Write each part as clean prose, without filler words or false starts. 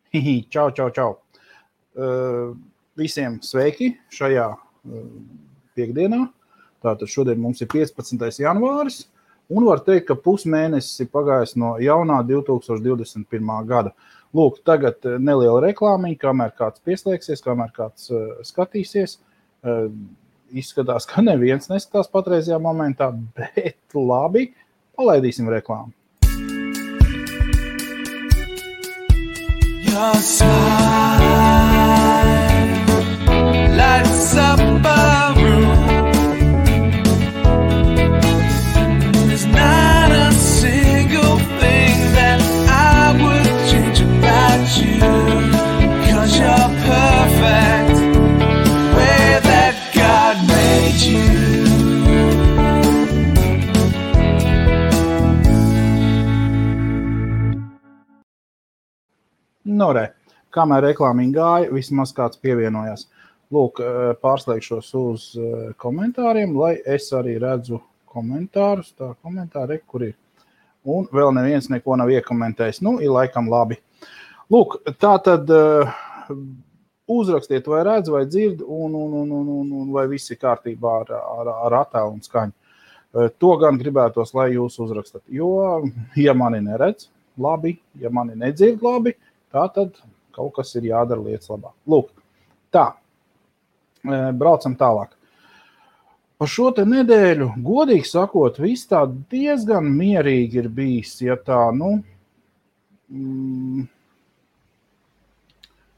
Čau, čau, čau. Visiem sveiki šajā piekdienā. Tātad šodien mums ir 15. janvāris, un var teikt, ka pusmēnesis ir pagājis no jaunā 2021. gada. Lūk, tagad neliela reklāmiņa, kamēr kāds pieslēgsies, kamēr kāds skatīsies. Izskatās, ka neviens neskatās patreizajā momentā, bet labi, palaidīsim reklāmu. Your smile lights up a room. There's not a single thing that I would change about you, 'cause you're perfect the way that God made you. Kamēr reklāmiņa gāja, vismaz kāds pievienojās. Lūk, pārslēgšos uz komentāriem, lai es arī redzu komentārus. Tā komentāri, kur ir. Un vēl neviens neko nav iekomentējis. Ir laikam labi. Lūk, tā tad uzrakstiet, vai redz, vai dzird, un vai viss ir kārtībā ar attēlu un skaņu. To gan gribētos, lai jūs uzrakstat. Jo, ja mani neredz, labi, ja mani nedzird, labi, tā tad kaut kas ir jādara lietas labāk. Lūk, tā, braucam tālāk. Par šo te nedēļu, godīgi sakot, viss tā diezgan mierīgi ir bijis, ja tā,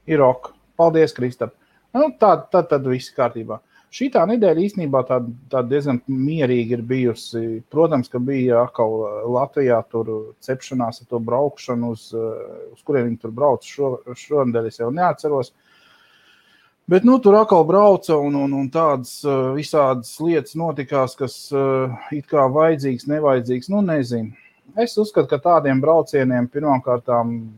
ir ok. Paldies, Kristap. Tad viss kārtībā. Šitā nedēļa īstenībā tā diezgan mierīgi ir bijusi. Protams, ka bija atkal Latvijā tur cepšanās ar to braukšanu, uz kuriem viņi tur brauc šonedēļ, es jau neatceros. Bet tur atkal brauca un tādas visādas lietas notikās, kas it kā vajadzīgs, nevajadzīgs, nezinu. Es uzskatu, ka tādiem braucieniem pirmkārtām,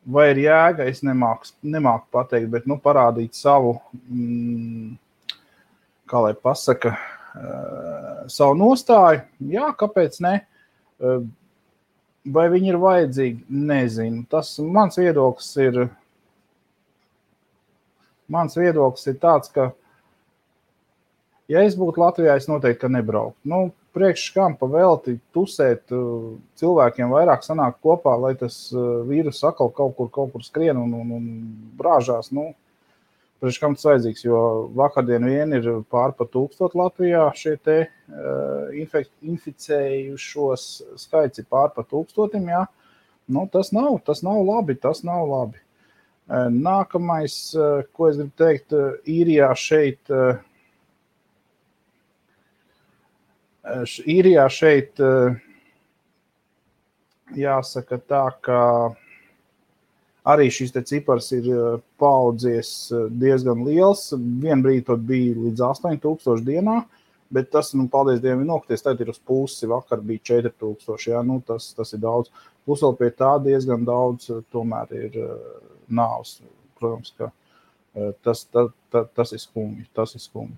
vai ir jēga, es nemāku pateikt, bet parādīt savu, kā lai pasaka, savu nostāju. Jā, kāpēc ne? Vai viņi ir vajadzīgi? Nezinu. Tas mans viedoklis ir tāds, ka ja es būtu Latvijā, es noteikti, ka nebrauktu. Priekš kam pavelti tusēt cilvēkiem vairāk sanāk kopā, lai tas vīrus atkal kaut kur skrien un brāžās. Priekš kam tas vajadzīgs, jo vakardien vien ir pār pa 1000 Latvijā šie te inficējušos skaits ir pār pa 1000, jā. Tas nav labi. Nākamais, ko es gribu teikt, Īrijā šeit jāsaka tā, ka arī šis te cipars ir paaudzies diezgan liels. Vienbrīd pat bija līdz 8000 dienā, bet tas, paldies Dievam, ir nokties. Tagad ir uz pusi, vakar bija 4000, jā, tas ir daudz. Plus vēl pie tā diezgan daudz tomēr ir nāvs. Protams, ka tas ir skumji.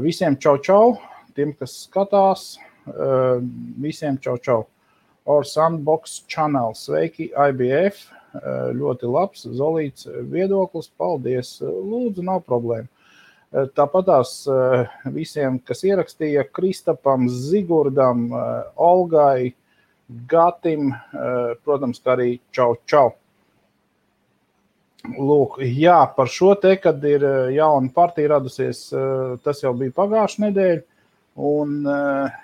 Visiem čau. Tiem, kas skatās, visiem čau. Our Sandbox channel, sveiki, IBF, ļoti labs, Zolīts viedoklis, paldies, lūdzu, nav problēma. Tāpatās visiem, kas ierakstīja, Kristapam, Zigurdam, Olgai, Gatim, protams, kā arī čau. Lūk, jā, par šo te, kad ir jauna partija radusies, tas jau bija pagājušā nedēļa. Un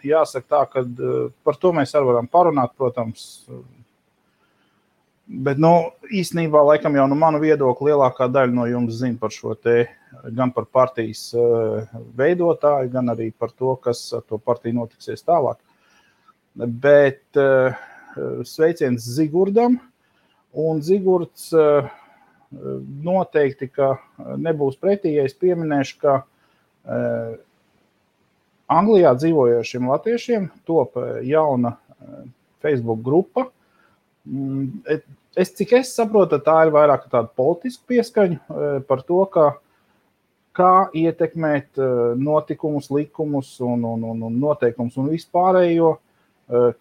jāsaka tā, ka par to mēs arī varam parunāt, protams. Bet, īstenībā, laikam jau manu viedokli lielākā daļa no jums zina par šo te, gan par partijas veidotāju, gan arī par to, kas ar to partiju notiksies tālāk. Bet sveiciens Zigurdam, un Zigurds noteikti, ka nebūs pretī, ja es pieminēšu, ka Anglijā dzīvojošiem latviešiem top jauna Facebook grupa. Cik es saprotu, tā ir vairāk tāda politiska pieskaņa par to, kā ietekmēt notikumus, likumus un noteikumus un vispārējo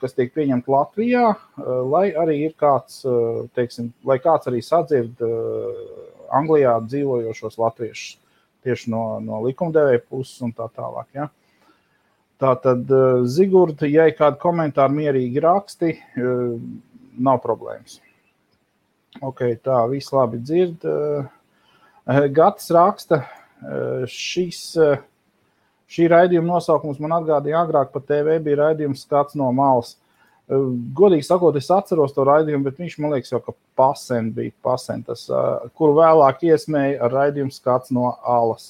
kas tiek pieņemti Latvijā, lai arī ir kāds, teiksim, lai kāds arī sadzird Anglijā dzīvojošos latviešus tieši no likumdevēja puses un tā tālāk. Ja? Tātad, Zigurda, ja ir kādi komentāri mierīgi raksti, nav problēmas. Ok, tā, viss labi dzird. Gatis raksta, šī raidījuma nosaukums man atgādīja agrāk pa TV bija raidījums Skats no malas. Godīgi sakot, es atceros to raidījumu, bet viņš, man liekas, jau ka pasen bija tas, kuru vēlāk iesmēja ar raidījumu Skats no alas.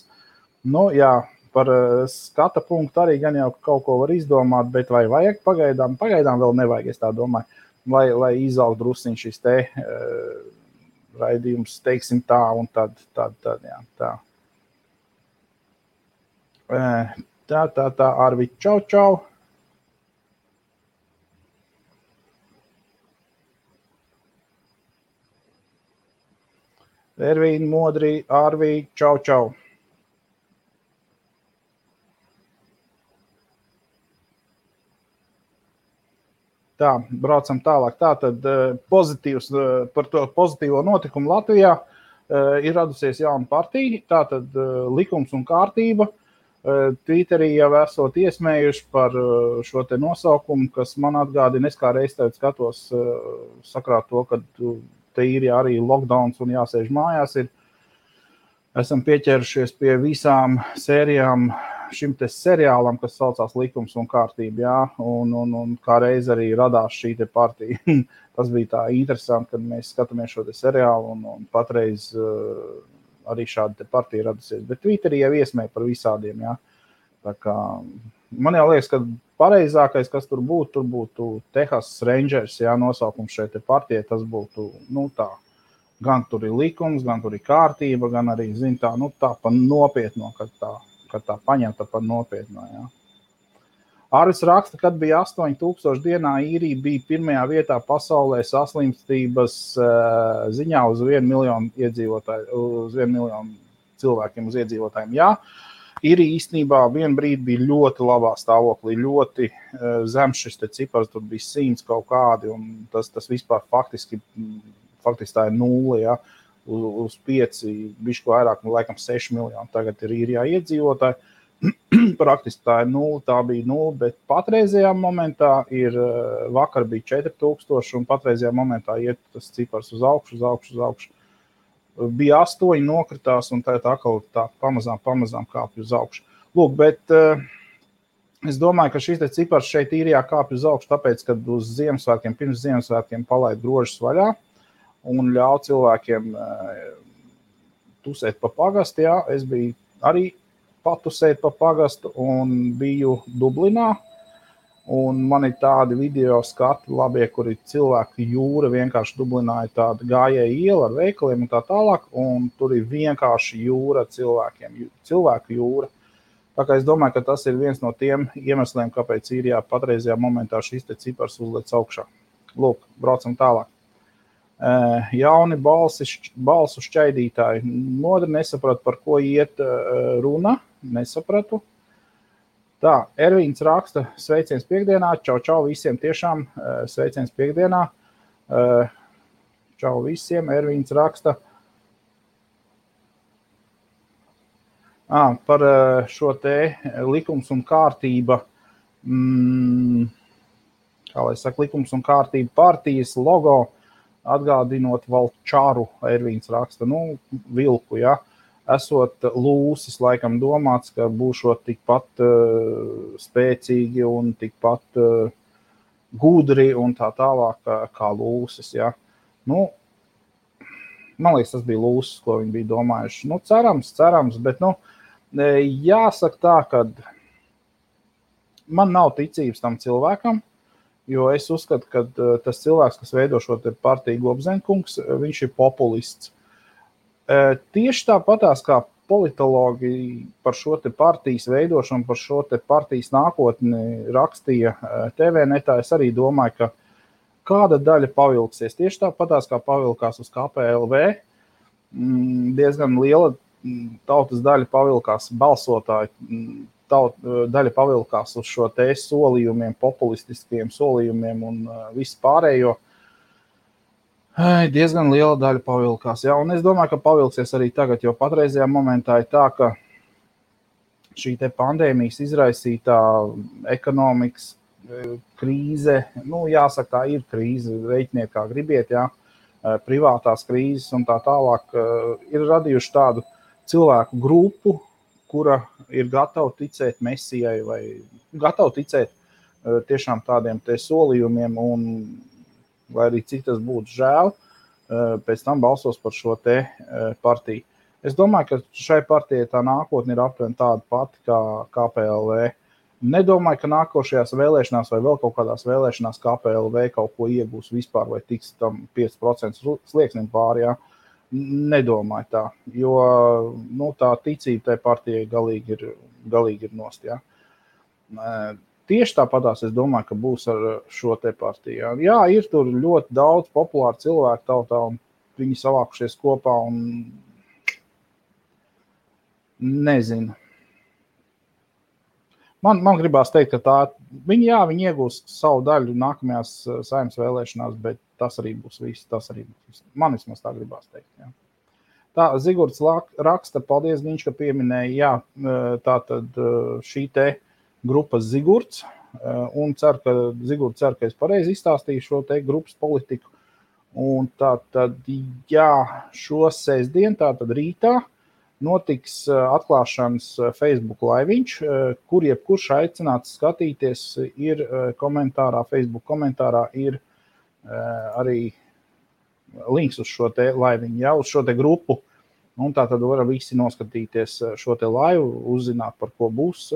Nu, jā, par skata punktu arī gan jau kaut ko var izdomāt, bet vai vajag pagaidām vēl nevajag, es tā domāju, lai izaug drusciņ šis te raidījums, teiksim tā, un tad, jā, tā. Tā, Arvi, čau. Ervīna, Modri, Arvi, čau. Tā, braucam tālāk. Tātad pozitīvs par to pozitīvo notikumu Latvijā ir radusies jauna partija, tātad likums un kārtība. Twitterī jau esot iesmējuši par šo te nosaukumu, kas man atgādina, es kā reiz tev skatos sakrāt to, ka te ir arī lockdowns un jāsēž mājās. Esam pieķērušies pie visām sērijām šim te seriālam, kas saucās Likums un kārtība, jā, un kā reiz arī radās šī te partija. Tas bija tā interesanti, kad mēs skatāmies šo te seriālu, un patreiz arī šāda te partija radusies. Bet Twitterī jau iesmēja par visādiem, jā. Tā kā, man jau liekas, ka pareizākais, kas tur būtu Texas Rangers, jā, nosaukums šeit te partijai, tas būtu, nu tā, gan tur ir likums, gan tur ir kārtība, gan arī, zin tā, nu tā pa nopietno, kad tā paņemta par nopietno, jā. Arvis raksta, kad bija 8000 dienā īrija bija pirmajā vietā pasaulē saslimstības ziņā uz 1 miljonu iedzīvotāju, uz 1 miljonu cilvēkiem uz iedzīvotājiem, jā. Īrija īstenībā vienu brīdi bija ļoti labā stāvoklī, ļoti zems šis te cipars, tur bija 100 kaut kādi, un tas vispār faktiski tā ir 0, ja, uz 5, bišķi vairāk, laikam 6 miljoni, tagad ir Īrijā iedzīvotāji, praktiski tā ir 0, tā bija 0, bet patreizajā momentā vakar bija 4000, un patreizajā momentā iet tas cipars uz augšu. Bija 8, nokritās, un tā atkal tā pamazām kāpj uz augšu. Lūk, bet es domāju, ka šis te cipars šeit Īrijā kāpj uz augšu, tāpēc, kad uz Ziemassvētkiem, pirms Ziemassvētkiem palaid grožus vaļā un ļauj cilvēkiem tusēt pa pagastu, jā. Es biju arī patusēt pa pagastu un biju Dublinā. Un man ir tādi video skati labie, kur ir cilvēku jūra, vienkārši Dublinā ir tāda gājēja iela ar veikaliem un tā tālāk, un tur ir vienkārši jūra cilvēkiem, cilvēku jūra. Tā kā es domāju, ka tas ir viens no tiem iemesliem, kāpēc Īrijā patreizajā momentā šis te cipars uzlec augšā. Lūk, braucam tālāk. Jauni balsu šķaidītāji. Modri nesapratu, par ko iet runa, nesapratu. Tā, Ervīns raksta, sveiciens piekdienā, čau visiem tiešām, sveiciens piekdienā, čau visiem, Ervīns raksta. Par šo te likums un kārtība, kā lai saka, likums un kārtība partijas logo, atgādinot Valčaru, Ervīns raksta, nu, vilku, ja. Esot lūsis, laikam domāts, ka būšot tikpat spēcīgi un tikpat gudri un tā tālāk kā lūsis, ja. Nu, man liekas, tas bija lūsis, ko viņi bija domājuši. Nu, cerams, bet, nu, jāsaka tā, ka man nav ticības tam cilvēkam, jo es uzskatu, ka tas cilvēks, kas veido šo te partiju Gobzenkungs, viņš ir populists. Tieši tāpatās kā politologi par šo te partijas veidošanu, par šo te partijas nākotni rakstīja TV-netā, es arī domāju, ka kāda daļa pavilksies. Tieši tāpatās kā pavilkās uz KPLV, diezgan liela tautas daļa pavilkās balsotāji daļa pavilkās uz šo te solījumiem, populistiskiem solījumiem un visu pārējo. Diezgan liela daļa pavilkās. Jā, un es domāju, ka pavilksies arī tagad, jo patreizajā momentā ir tā, ka šī te pandēmijas izraisītā ekonomikas krīze, jāsaka, tā ir krīze, reiķiniet kā gribiet, jā, privātās krīzes un tā tālāk, ir radījuši tādu cilvēku grupu, kura ir gatava ticēt mesijai vai gatava ticēt tiešām tādiem te solījumiem un, lai arī cik tas būtu žēl, pēc tam balsos par šo te partiju. Es domāju, ka šai partijai tā nākotne ir aptuveni tāda pati kā KPLV. Nedomāju, ka nākošajās vēlēšanās vai vēl kaut kādās vēlēšanās KPLV kaut ko iegūs vispār vai tiks tam 5% slieksnim pāri, jā. Nedomāju tā, jo tā ticība tai partijai galīgi ir nost, jā. Tieši tāpatās es domāju, ka būs ar šo te partiju. Jā, ir tur ļoti daudz populāru cilvēku tautā un viņi savākušies kopā un nezinu. Man gribās teikt, ka viņi iegūs savu daļu nākamajās Saeimas vēlēšanās, bet tas arī būs viss. Man vismaz tā gribās teikt. Jā. Tā, Zigurds raksta, paldies, Giņš, ka pieminēja, tātad šī te grupas Zigurds, un Zigurds cer, ka es pareizi izstāstīju šo te grupas politiku. Un tātad, šo sestdien, tātad rītā, notiks atklāšanas Facebook laiviņš, kur jebkurš aicināts skatīties, ir Facebook komentārā ir arī links uz šo te laiviņu, uz šo te grupu. Un tā tad var visi noskatīties šo te laivu, uzzināt, par ko būs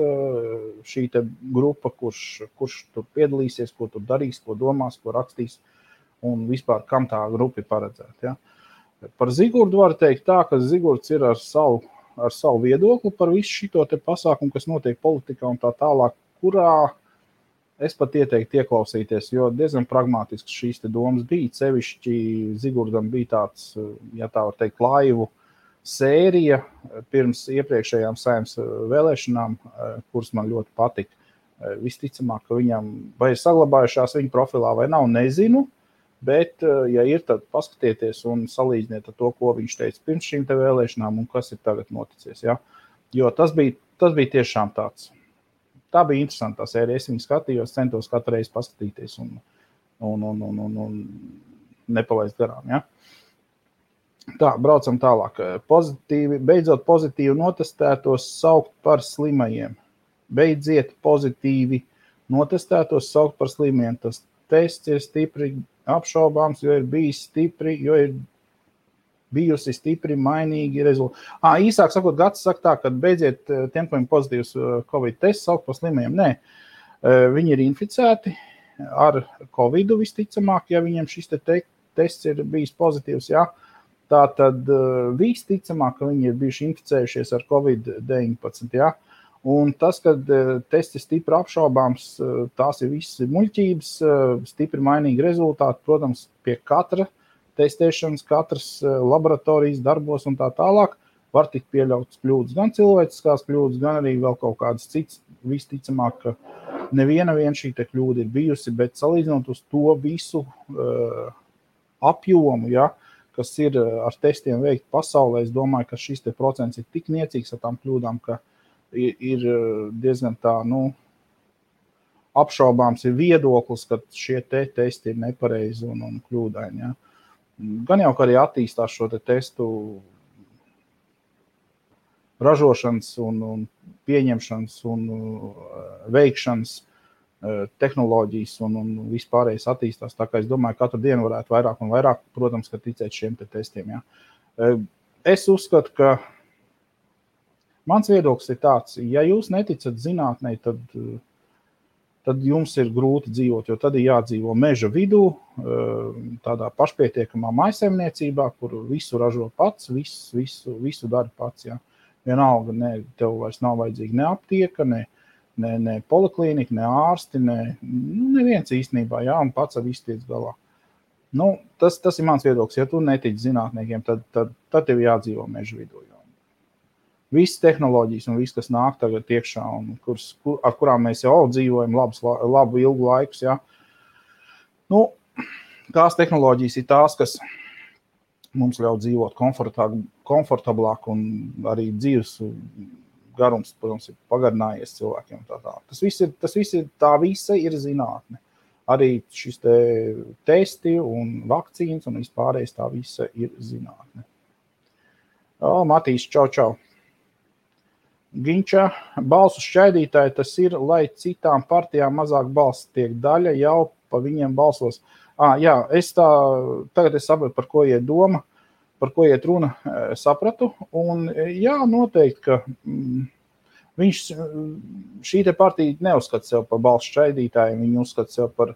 šī te grupa, kurš tur piedalīsies, ko tur darīs, ko domās, ko rakstīs un vispār, kam tā grupa ir paredzēta. Ja? Par Zigurdu var teikt tā, ka Zigurds ir ar savu viedokli par visu šito te pasākumu, kas notiek politikā un tā tālāk, kurā es pat ieteiktu ieklausīties, jo diezgan pragmātisks šīs te domas bija. Sevišķi Zigurdam bija tāds, ja tā var teikt, laivu sērija pirms iepriekšējām Saeimas vēlēšanām, kuras man ļoti patika. Visticamāk, ka viņam vai ir saglabājušās viņa profilā vai nav, nezinu. Bet, ja ir, tad paskatieties un salīdziniet ar to, ko viņš teica pirms šīm te vēlēšanām un kas ir tagad noticies. Ja? Jo tas bija tiešām tāds. Tā bija interesanta sērija. Es viņu skatījos, centos katru reizi paskatīties un nepalaist garām. Ja? Tā, braucam tālāk. Beidzot pozitīvi notestētos saukt par slimajiem. Beidziet pozitīvi notestētos saukt par slimajiem. Tas tests ir stipri apšaubāms, jo ir bijusi stipri mainīgi rezultāti. Īsāk sakot, Gats saka tā, ka beidziet tiem, kuriem pozitīvs Covid tests saukt par slimajiem. Nē, viņi ir inficēti ar Covidu visticamāk, ja viņiem šis tests ir bijis pozitīvs, jā. Tātad visticamāk, ka viņi ir bijuši inficējušies ar Covid-19, jā. Un tas, kad tests ir stipri apšaubāms, tās ir visas muļķības, stipri mainīgi rezultāti, protams, pie katra testēšanas, katras laboratorijas darbos un tā tālāk var tikt pieļautas kļūdas, gan cilvēciskās kļūdas, gan arī vēl kaut kādas citas. Visticamāk, ka neviena šī te kļūda ir bijusi, bet salīdzinot uz to visu apjomu, ja, kas ir ar testiem veikt pasaulē, es domāju, ka šis te procents ir tik niecīgs ar tām kļūdām, ka ir diezgan tā, apšaubāms ir viedoklis, ka šie testi ir nepareizi un kļūdaini. Ja. Gan jau, ka arī attīstās šo testu ražošanas un pieņemšanas un veikšanas tehnoloģijas un vispārējais attīstās. Tā kā es domāju, katru dienu varētu vairāk un vairāk, protams, ka ticēt šiem testiem. Ja. Es uzskatu, ka mans viedoklis ir tāds, ja jūs neticat zinātnei, tad jums ir grūti dzīvot, jo tad ir jādzīvo meža vidū, tādā pašpietiekamā maisaimniecībā, kur visu ražo pats, visu dara pats. Ja. Vienalga, tev vairs nav vajadzīga ne aptieka, ne poliklīnika, ne ārsti, neviens īstenībā, ja, un pats ar visu tiec galā. Tas ir mans viedoklis. Ja tu netici zinātniekiem, tad tev jādzīvo meža vidū. visas tehnoloģijas un viss, kas nāk tagad iekšā un ar kurām mēs jau dzīvojam labu ilgu laikus, ja. Nu, tās tehnoloģijas ir tās, kas mums ļauj dzīvot komfortablāk un arī dzīves garums, protams, ir pagarinājies cilvēkiem. Tas viss ir zinātne. Arī šis testi un vakcīnas un vispārējais tā visa ir zinātne. Matīs, čau. Ginča, balsu šķaidītāji tas ir, lai citām partijām mazāk balss tiek daļa, jau pa viņiem balsos. Jā, tagad es sapratu, par ko iet doma, par ko iet runa, sapratu. Un jā, noteikti, ka šī te partija neuzskata sev par balsu šķaidītājiem, viņi uzskata sev par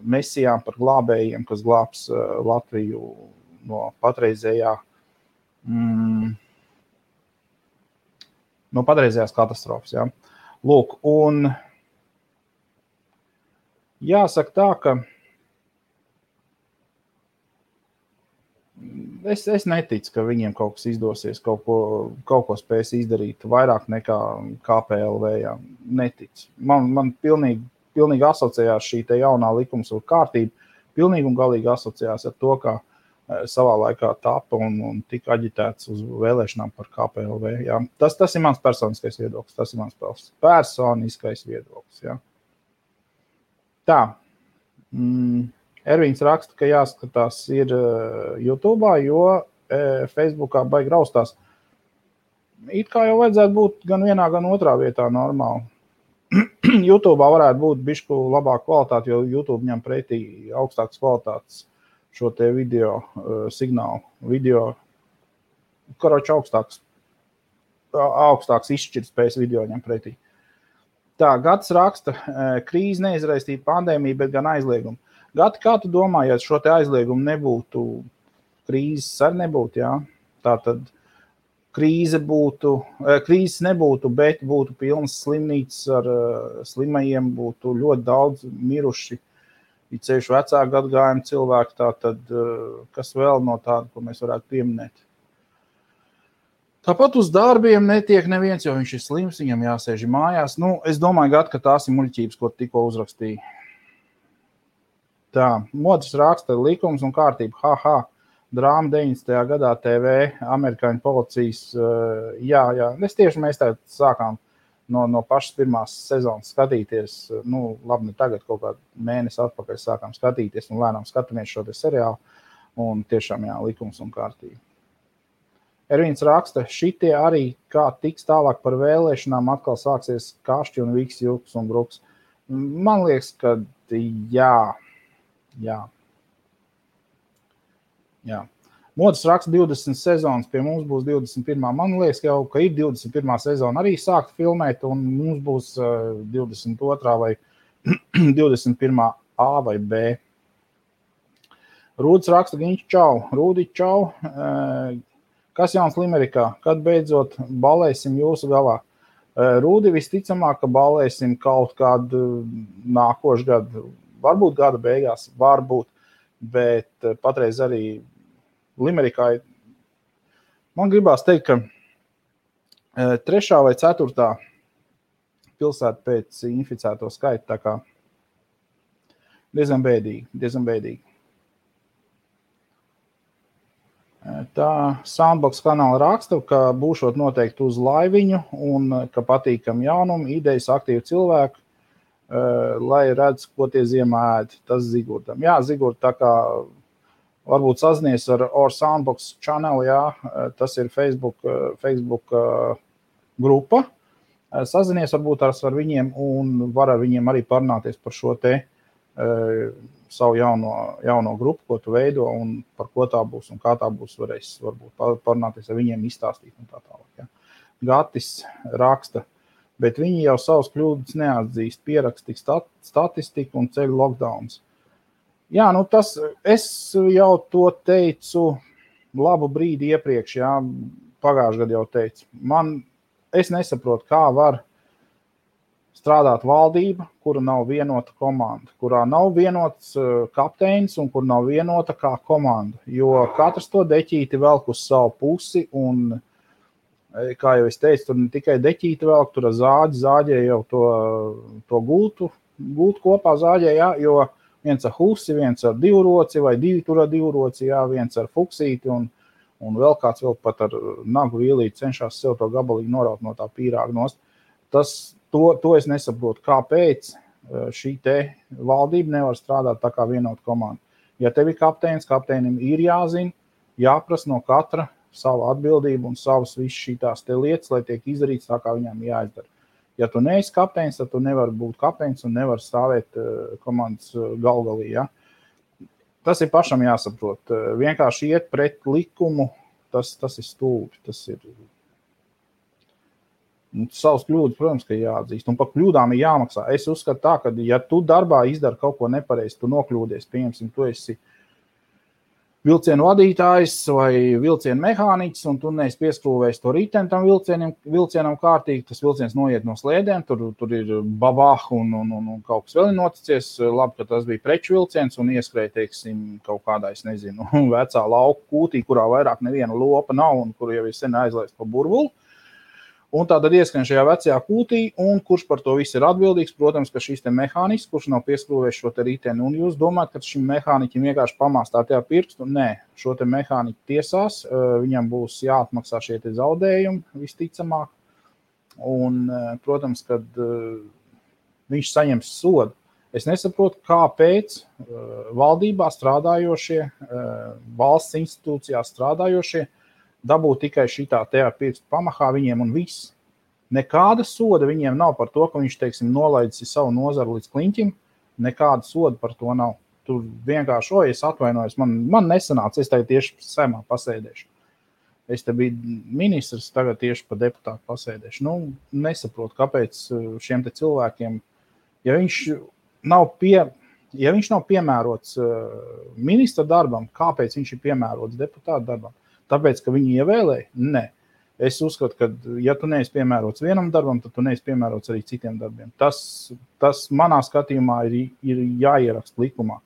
mesijām, par glābējiem, kas glābs Latviju no patreizējā no patreizējās katastrofas. Ja. Lūk, un jāsaka tā, ka es neticu, ka viņiem kaut kas izdosies, kaut ko spēs izdarīt vairāk nekā KPLV. Ja. Neticu. Man pilnīgi asociējās šī te jaunā likums un kārtība, pilnīgi un galīgi asociējās ar to, kā savā laikā tapa un tika aģitēts uz vēlēšanām par KPLV. Ja. Tas ir mans personiskais viedoklis. Tas ir mans personiskais viedoklis. Ja. Tā. Ervīns raksta, ka jāskatās ir YouTube'ā, jo Facebookā baigi raustās. It kā jau vajadzētu būt gan vienā, gan otrā vietā normāli. YouTube'ā varētu būt bišķu labāk kvalitāte, jo YouTube ņem pretī augstākas kvalitātes šo te video signālu. Video, karoči augstāks izšķirtspējas video ņem pretī. Tā, Gatis raksta, krīze neizraistīja pandēmiju, bet gan aizliegumu. Gati, kā tu domā, ja šo te aizliegumu nebūtu, krīzes arī nebūtu, jā? Tātad krīzes nebūtu, bet būtu pilnas slimnīcas ar slimajiem, būtu ļoti daudz miruši, ir ceļš vecāku gadgājumu cilvēku, tātad kas vēl no tāda, ko mēs varētu pieminēt. Tāpat uz darbiem netiek neviens, jo viņš ir slims, viņam jāsēž mājās. Nu, es domāju, Gat, ka tās ir muļķības, ko tikko uzrakstīja. Tā, Modris raksta likums un kārtība, drāma 90. gadā TV, amerikāņu policijas, jā, mēs tā sākām no pašas pirmās sezonas skatīties, nu, labi, ne tagad, kaut kādu mēnesi atpakaļ sākām skatīties un lēnām skatāmies šo te seriālu un tiešām, jā, likums un kārtība. Ervīns raksta, šitie arī, kā tiks tālāk par vēlēšanām, atkal sāksies kašķi un viks, juks un bruks. Man liekas, ka jā. Modis raksta 20 sezonas, pie mums būs 21. Man liekas, ka ir 21. sezona arī sākt filmēt, un mums būs 22. vai 21. A vai B. Rūdis raksta, Ginč, čau. Rūdi, čau. Kas jauns Limerikā? Kad beidzot balēsim jūsu galā? Rūdi, visticamāk, ka balēsim kaut kādu nākošu gadu. Varbūt gada beigās, varbūt, bet patreiz arī Limerikā, man gribās teikt, ka 3. vai 4. pilsēta pēc inficēto skaita, tā kā diezgan bēdīgi. Tā Soundbox kanāla raksta, ka būšot noteikti uz laiviņu un ka patīkam jaunumu, idejas aktīvi cilvēku, lai redz, ko tie ziemā ēd. Tas Zigurdam. Jā, Zigurd, tā kā varbūt sazinies ar Soundbox channel, jā, tas ir Facebook grupa. Sazinies varbūt ar viņiem un var ar viņiem arī parunāties par šo te savu jauno grupu, ko tu veido un par ko tā būs un kā tā būs, varēs varbūt parunāties ar viņiem, izstāstīt un tā tālāk. Ja. Gatis raksta, bet viņi jau savus kļūdas neatzīst, pierakstīs statistiku un ceļu lockdowns. Jā, nu tas, es jau to teicu labu brīdi iepriekš, jā, pagājušajā gadā jau teicu. Es nesaprotu, kā var strādāt valdība, kura nav vienota komanda, kurā nav vienots kapteinis un kur nav vienota kā komanda, jo katrs to deķīti velk uz savu pusi un kā jau es teicu, tur ne tikai deķīti vēl, tur zāģē jau to gultu kopā zāģē, jā, jo viens ar husi, viens ar divroci vai divi tur ar divroci, jā, viens ar fuksīti un vēl kāds vēl pat ar nagu vīlīti cenšas sev to gabalīgi noraut no tā pīrāga nost. To es nesaprotu, kāpēc šī te valdība nevar strādāt tā kā vienota komanda. Ja tev ir kapteinis, kapteinim ir jāzina, jāprasa no katra savu atbildību un savas visas šīs te lietas, lai tiek izdarīts tā, kā viņām jāizdara. Ja tu neesi kapteinis, tad tu nevari būt kapteinis un nevar stāvēt komandas galgalī. Ja? Tas ir pašam jāsaprot. Vienkārši iet pret likumu, tas ir stulbi. Tas ir savas kļūdas, protams, ka jāatzīst. Un par kļūdām ir jāmaksā. Es uzskatu tā, ka ja tu darbā izdari kaut ko nepareizi, tu nokļūdies, pieņemsim, tu esi vilcienu vadītājs vai vilcienu mehāniķis, un tu neesi pieskrūvējis to riteni tam vilcienam kārtīgi, tas vilciens noiet no slēdēm, tur ir babah un kaut kas vēl ir noticies. Labi, ka tas bija preču vilciens un ieskrēja, teiksim, kaut kādā, es nezinu, vecā lauku kūtī, kurā vairāk neviena lopa nav un kur jau ir sen aizlaist pa burbuli. Un tātad ieskrien šajā vecajā kūtī, un kurš par to viss ir atbildīgs, protams, ka šis te mehānisks, kurš nav pieskrūvējis šo te riteni. Un jūs domājat, ka šim mehāniķim vienkārši pamāstā tajā pirkstu? Nē, šo te mehāniķu tiesās, viņam būs jāatmaksā šie te zaudējumi visticamāk. Un, protams, kad viņš saņems sodu. Es nesaprotu, kāpēc valdībā strādājošie, valsts institūcijās strādājošie, dabūt tikai šitā tajā pirkstu pamahā viņiem un viss. Nekāda soda viņiem nav par to, ka viņš, teiksim, nolaidis savu nozaru līdz kliņķim. Nekāda soda par to nav. Tur vienkārši, es atvainojos, man nesanāca, es tagad tieši Saeimā pasēdēšu. Es te biju ministrs, tagad tieši pa deputātu pasēdēšu. Nesaprotu, kāpēc šiem te cilvēkiem, ja viņš nav piemērots ministra darbam, kāpēc viņš ir piemērots deputātu darbam? Tāpēc, ka viņi ievēlēja? Nē. Es uzskatu, ka ja tu neesi piemērots vienam darbam, tad tu neesi piemērots arī citiem darbiem. Tas manā skatījumā ir jāieraksta likumā.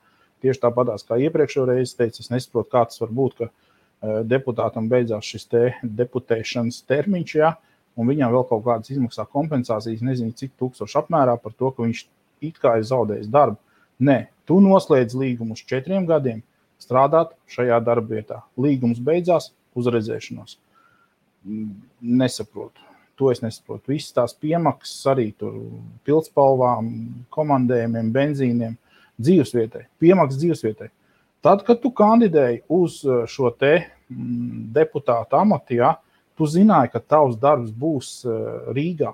Tieši tāpatās, kā iepriekšējo reizi teicu, es nesaprotu, kā tas var būt, ka deputātam beidzās šis te deputēšanas termiņš, ja, un viņam vēl kaut kādas izmaksā kompensācijas, nezinu, cik tūkstoši apmērā par to, ka viņš it kā ir zaudējis darbu. Nē, tu noslēdz līgumu uz 4 gadiem strādāt šajā darba vietā. Līgums beidzās, uzredzēšanos. Nesaprotu. To es nesaprotu. Visas tās piemaksas arī tur pildspalvām, komandējumiem, benzīniem, dzīvesvietai. Piemaksas dzīvesvietai. Tad, kad tu kandidēji uz šo te deputātu amatu, ja, tu zināji, ka tavs darbs būs Rīgā.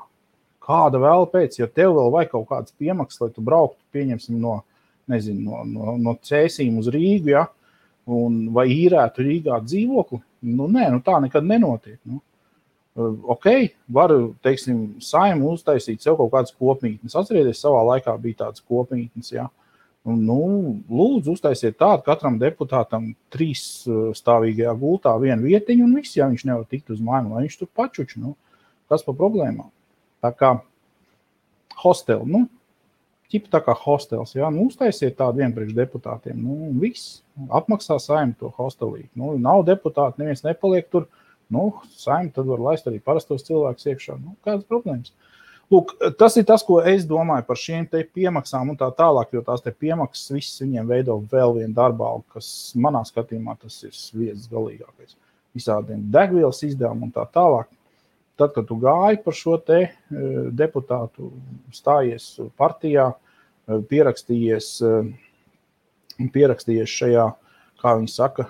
Kāda vēl pēc, ja tev vēl vajag kaut kādas piemaksas, lai tu brauktu, pieņemsim no Cēsīm uz Rīgu, ja, vai īrētu Rīgā dzīvokli, tā nekad nenotiek. Var, teiksim, Saeimu uztaisīt sev kaut kādas kopmītnes. Atcerieties, savā laikā bija tādas kopmītnes, ja. Lūdzu, uztaisiet tādu katram deputātam 3-stāvīgajā gultā vienu vietiņu un viss, ja viņš nevar tikt uz mājām, lai viņš tur pačuč, kas pa problēmām. Tā kā hosteli, ķipa tā kā hostels, ja, uztaisiet tādu vienu priekš deputātiem, viss, apmaksā Saeimu to hostelī. Nav deputāti, neviens nepaliek tur, Saeimu tad var laist arī parastos cilvēkus iekšā, kādas problēmas. Lūk, tas ir tas, ko es domāju par šiem te piemaksām un tā tālāk, jo tās te piemaksas viss viņiem veido vēl vienu darbālu, kas manā skatījumā tas ir sviedzis galīgākais. Visādiem degvielas izdevumu un tā tālāk. Tad, kad tu gāji par šo te deputātu, stājies partijā, pierakstījies šajā, kā viņi saka,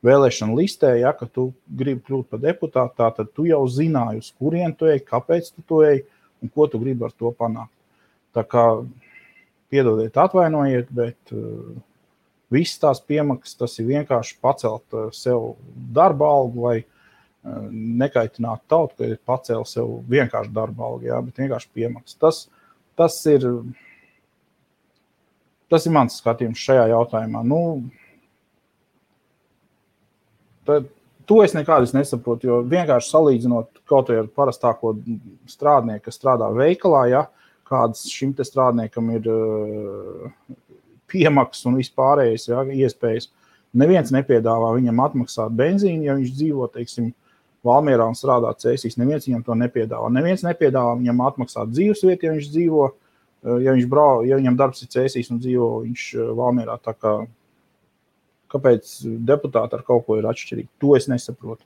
vēlēšana listē, ja, ka tu gribi kļūt par deputātu, tad tu jau zināji, uz kurien tu ej, kāpēc tu to ej un ko tu gribi ar to panākt. Tā kā, piedodiet, atvainojiet, bet visas tās piemaksas, tas ir vienkārši pacelt sev darba algu vai nekaitināt tautu, ka ir pacēla sev vienkārši darba algu, jā, bet vienkārši piemaksas. Tas ir mans skatījums šajā jautājumā. To es nekādus nesaprotu, jo vienkārši salīdzinot kaut vai ar parastāko strādnieku, kas strādā veikalā, ja, kādas šim te strādniekam ir piemaksas un vispārējais, ja, iespējas. Neviens nepiedāvā viņam atmaksāt benzīnu, ja viņš dzīvo, teiksim, Valmierā un strādā Cēsīs. Neviens viņam to nepiedāvā. Neviens nepiedāvā viņam atmaksāt dzīvesvietu, ja viņš dzīvo, ja viņam darbs ir Cēsīs un dzīvo viņš Valmierā. Tā kā, kāpēc deputāti ar kaut ko ir atšķirīgi? To es nesaprotu.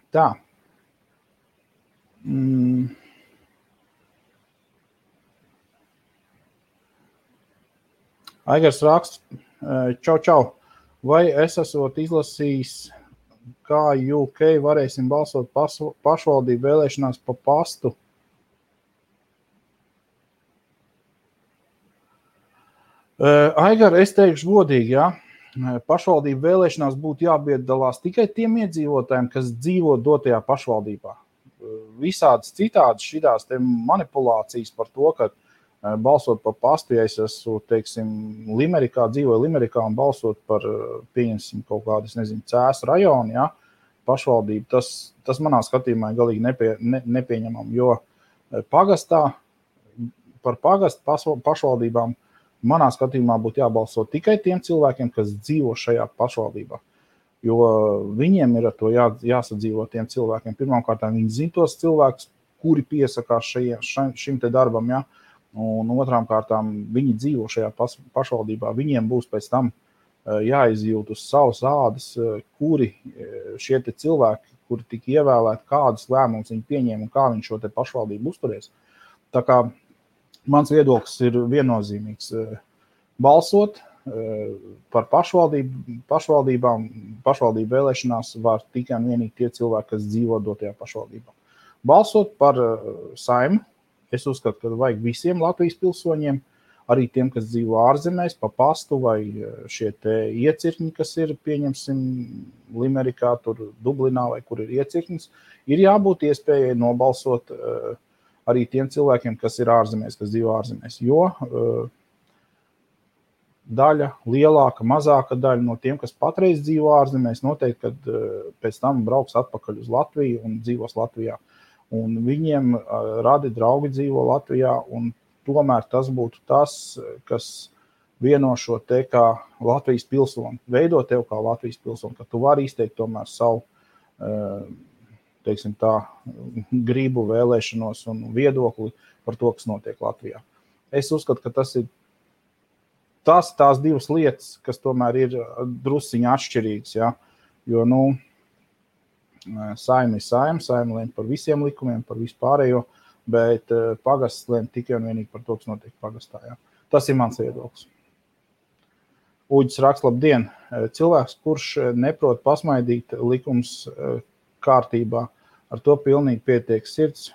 Tā. Aigars raksts, čau. Vai es esot izlasījis, kā UK varēsim balsot pašvaldību vēlēšanās pa pastu? Aigar, es teikšu godīgi, jā. Pašvaldību vēlēšanās būtu jāpiedalās tikai tiem iedzīvotājiem, kas dzīvo dotajā pašvaldībā. Visādas citādas šitās te manipulācijas par to, ka balsot par pastu, ja es esmu, teiksim, dzīvoju Limerikā un balsot par, pieņemsim, kaut kādu, es nezinu, Cēsu rajonu, ja, pašvaldību, tas manā skatījumā ir galīgi nepieņemam, jo pagastā, par pagastu pašvaldībām manā skatījumā būtu jābalso tikai tiem cilvēkiem, kas dzīvo šajā pašvaldībā. Jo viņiem ir ar to jāsadzīvo tiem cilvēkiem. Pirmkārt, viņi zina tos cilvēkus, kuri piesakās šim te darbam, ja? Un otrām kārtām viņi dzīvo šajā pašvaldībā. Viņiem būs pēc tam jāizjūt uz savas ādas, kuri šie te cilvēki, kuri tika ievēlēti, kādus lēmumus viņi pieņēma un kā viņi šo te pašvaldību uzturēs. Tā kā mans viedoklis ir viennozīmīgs. Balsot par pašvaldībām, pašvaldību vēlēšanās var tikai un vienīgi tie cilvēki, kas dzīvo dotajā pašvaldībā. Balsot par Saeimu, es uzskatu, ka vajag visiem Latvijas pilsoņiem, arī tiem, kas dzīvo ārzemēs, pa pastu vai šie te iecirkņi, kas ir, pieņemsim, Limerikā, tur Dublinā vai kur ir iecirknis, ir jābūt iespējai nobalsot arī tiem cilvēkiem, kas ir ārzemēs, kas dzīvo ārzemēs, jo daļa, lielāka, mazāka daļa no tiem, kas patreiz dzīvo ārzemēs, noteikti, kad pēc tam brauks atpakaļ uz Latviju un dzīvos Latvijā. Un viņiem radi draugi dzīvo Latvijā, un tomēr tas būtu tas, kas vieno šo te kā Latvijas pilsoni, veido tev kā Latvijas pilsoni, ka tu vari izteikt tomēr savu, teiksim tā, gribu, vēlēšanos un viedokli par to, kas notiek Latvijā. Es uzskatu, ka tas ir tās divas lietas, kas tomēr ir drusciņi atšķirīgas, ja? Jo, Saeima ir Saeima lēma par visiem likumiem, par vispārējo, bet pagasts lēma tikai un vienīgi par to, kas notiek pagastā, ja? Tas ir mans viedoklis. Uģis raksta, labdien, cilvēks, kurš neprot pasmaidīt likums kārtībā, ar to pilnīgi pietiek sirds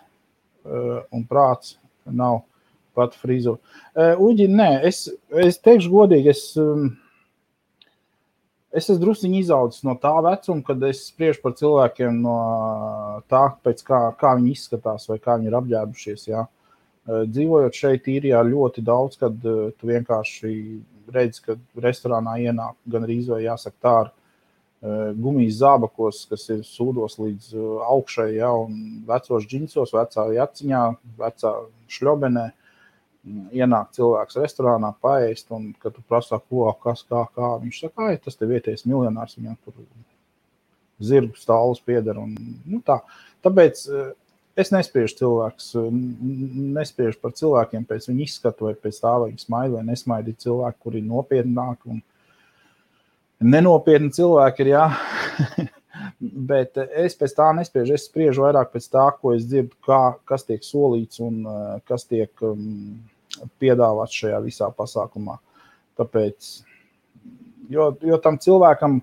un prāts nav pat frizu. Uģi, nē, es teikšu godīgi, es esmu drusciņi izaudzis no tā vecuma, kad es spriežu par cilvēkiem no tā, pēc kā viņi izskatās vai kā viņi ir apģērbušies. Ja? Dzīvojot šeit īrijā ļoti daudz, kad tu vienkārši redzi, ka restorānā ienāk gan arī vai jāsaka tā ar gumijas zābakos, kas ir sūdos līdz augšai, ja? Un vecos džinsos, vecā jaciņā, vecā šļobenē. Ienāk cilvēks restorānā paēst, un kad tu prasā, ko, kas, kā, viņš saka, tas te vietējais miljonārs, viņam tur zirgu stāvus pieder, un tā. Tāpēc es nespriežu par cilvēkiem pēc viņu izskatu, vai pēc tā, vai viņi smaida, vai nesmaida cilvēki, kuri ir nopietnāki, un nenopietni cilvēki ir, jā. Bet es pēc tā nespriežu, es spriežu vairāk pēc tā, ko es dzirdu, kas tiek solīts un kas tiek piedāvāts šajā visā pasākumā. Tāpēc, jo tam cilvēkam,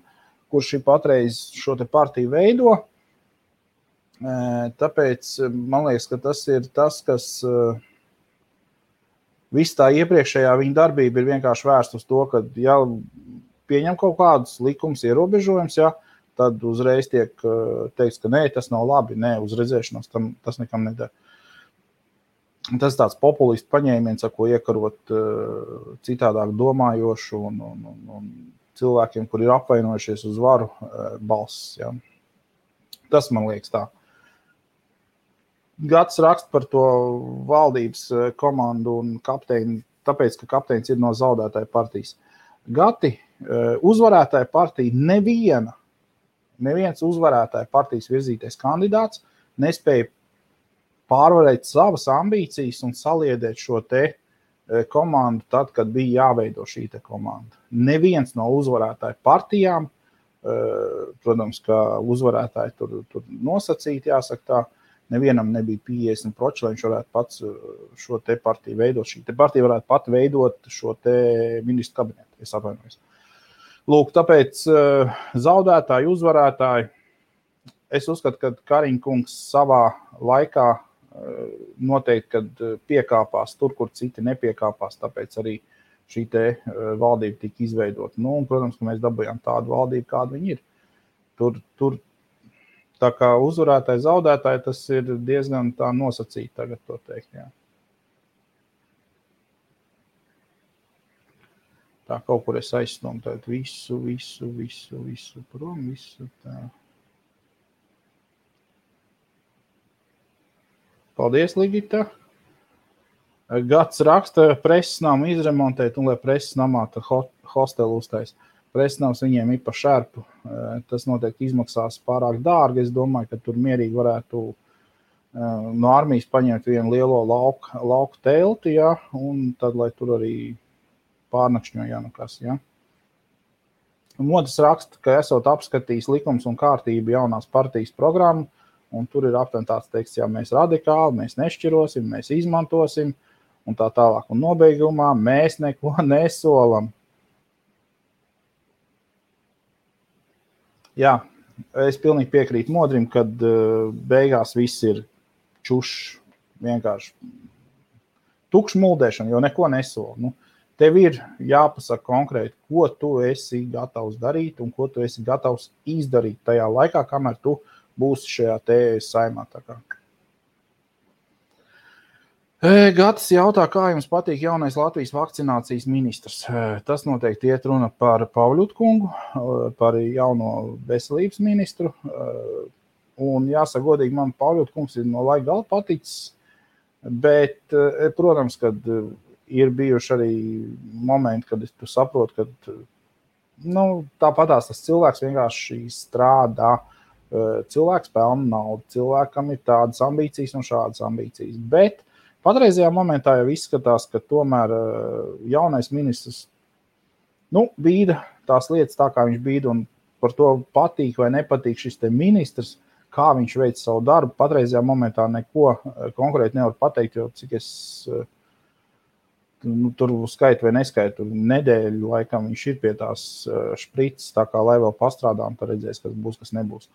kurš ir patreiz šo te partiju veido, tāpēc man liekas, ka tas ir tas, kas viss tā iepriekšējā viņa darbība ir vienkārši vērsta uz to, ka ja pieņem kaut kādus likums ierobežojums, ja, tad uzreiz tiek teikts, ka nē, tas nav labi, nē, uz redzēšanos tas nekam nedara. Tas tāds populistu paņēmiens, ar ko iekarot citādāk domājošu un cilvēkiem, kur ir apvainojušies uz varu balss. Ja. Tas man liekas tā. Gads raksta par to valdības komandu un kapteini tāpēc, ka kapteinis ir no zaudētāja partijas. Gati, uzvarētāja partija neviens uzvarētāja partijas virzītais kandidāts nespēja pārvarēt savas ambīcijas un saliedēt šo te komandu tad, kad bija jāveido šī te komanda. Neviens no uzvarētāju partijām, protams, ka uzvarētāji tur nosacīti, jāsaka tā, nevienam nebija 50%, lai viņš varētu pats šo te partiju veidot. Šī te partija varētu pat veidot šo te ministru kabinetu, es atvainojos. Lūk, tāpēc zaudētāji, uzvarētāji, es uzskatu, ka Kariņkungs savā laikā noteikti, kad piekāpās tur, kur citi nepiekāpās, tāpēc arī šī te valdība tika izveidota. Nu, un, protams, ka mēs dabūjām tādu valdību, kāda viņi ir. Tur tā kā uzvarētāji, zaudētāji, tas ir diezgan tā nosacīti tagad to teikt, jā. Tā kaut kur es aizsnomu tādu visu prom, visu tā. Paldies, Ligita. Gads raksta, preses namu izremontēt un lai preses namā tad hostelu uztais. Preses nams viņiem ir pa šerpu. Tas noteikti izmaksās pārāk dārgi. Es domāju, ka tur mierīgi varētu no armijas paņemt vienu lielo lauku telti, ja, un tad, lai tur arī pārnakšņo, ja nekas, ja. Modas raksta, ka esot apskatījis likums un kārtību jaunās partijas programmu, un tur ir aptuveni tāds teksts, ja mēs radikāli, mēs nešķirosim, mēs izmantosim, un tā tālāk. Un nobeigumā mēs neko nesolam. Jā, es pilnīgi piekrītu Modrim, kad beigās viss ir čušs, vienkārši tukšs muldēšana, jo neko nesola. Nu, tev ir jāpasaka konkrēti, ko tu esi gatavs darīt un ko tu esi gatavs izdarīt tajā laikā, kamēr tu būs šajā te saimā. Gatis jautā, kā jums patīk jaunais Latvijas vakcinācijas ministrs. Tas noteikti iet runa par Pavļutu kungu, par jauno veselības ministru. Un jāsaka godīgi, man Pavļutu kungs ir no laika gala paticis, bet, protams, kad ir bijuši arī momenti, kad tu saproti, ka tāpatās tas cilvēks vienkārši strādā. Cilvēks pelna naudu, cilvēkam ir tādas ambīcijas un šādas ambīcijas. Bet patreizajā momentā jau izskatās, ka tomēr jaunais ministrs bīda tās lietas tā, kā viņš bīda, un par to patīk vai nepatīk šis te ministrs, kā viņš veic savu darbu. Patreizajā momentā neko konkrēti nevar pateikt, jo cik es tur skaitu vai neskaitu, nedēļu laikam viņš ir pie tās šprices, tā kā lai vēl pastrādā, un tad redzēs, kas būs, kas nebūs.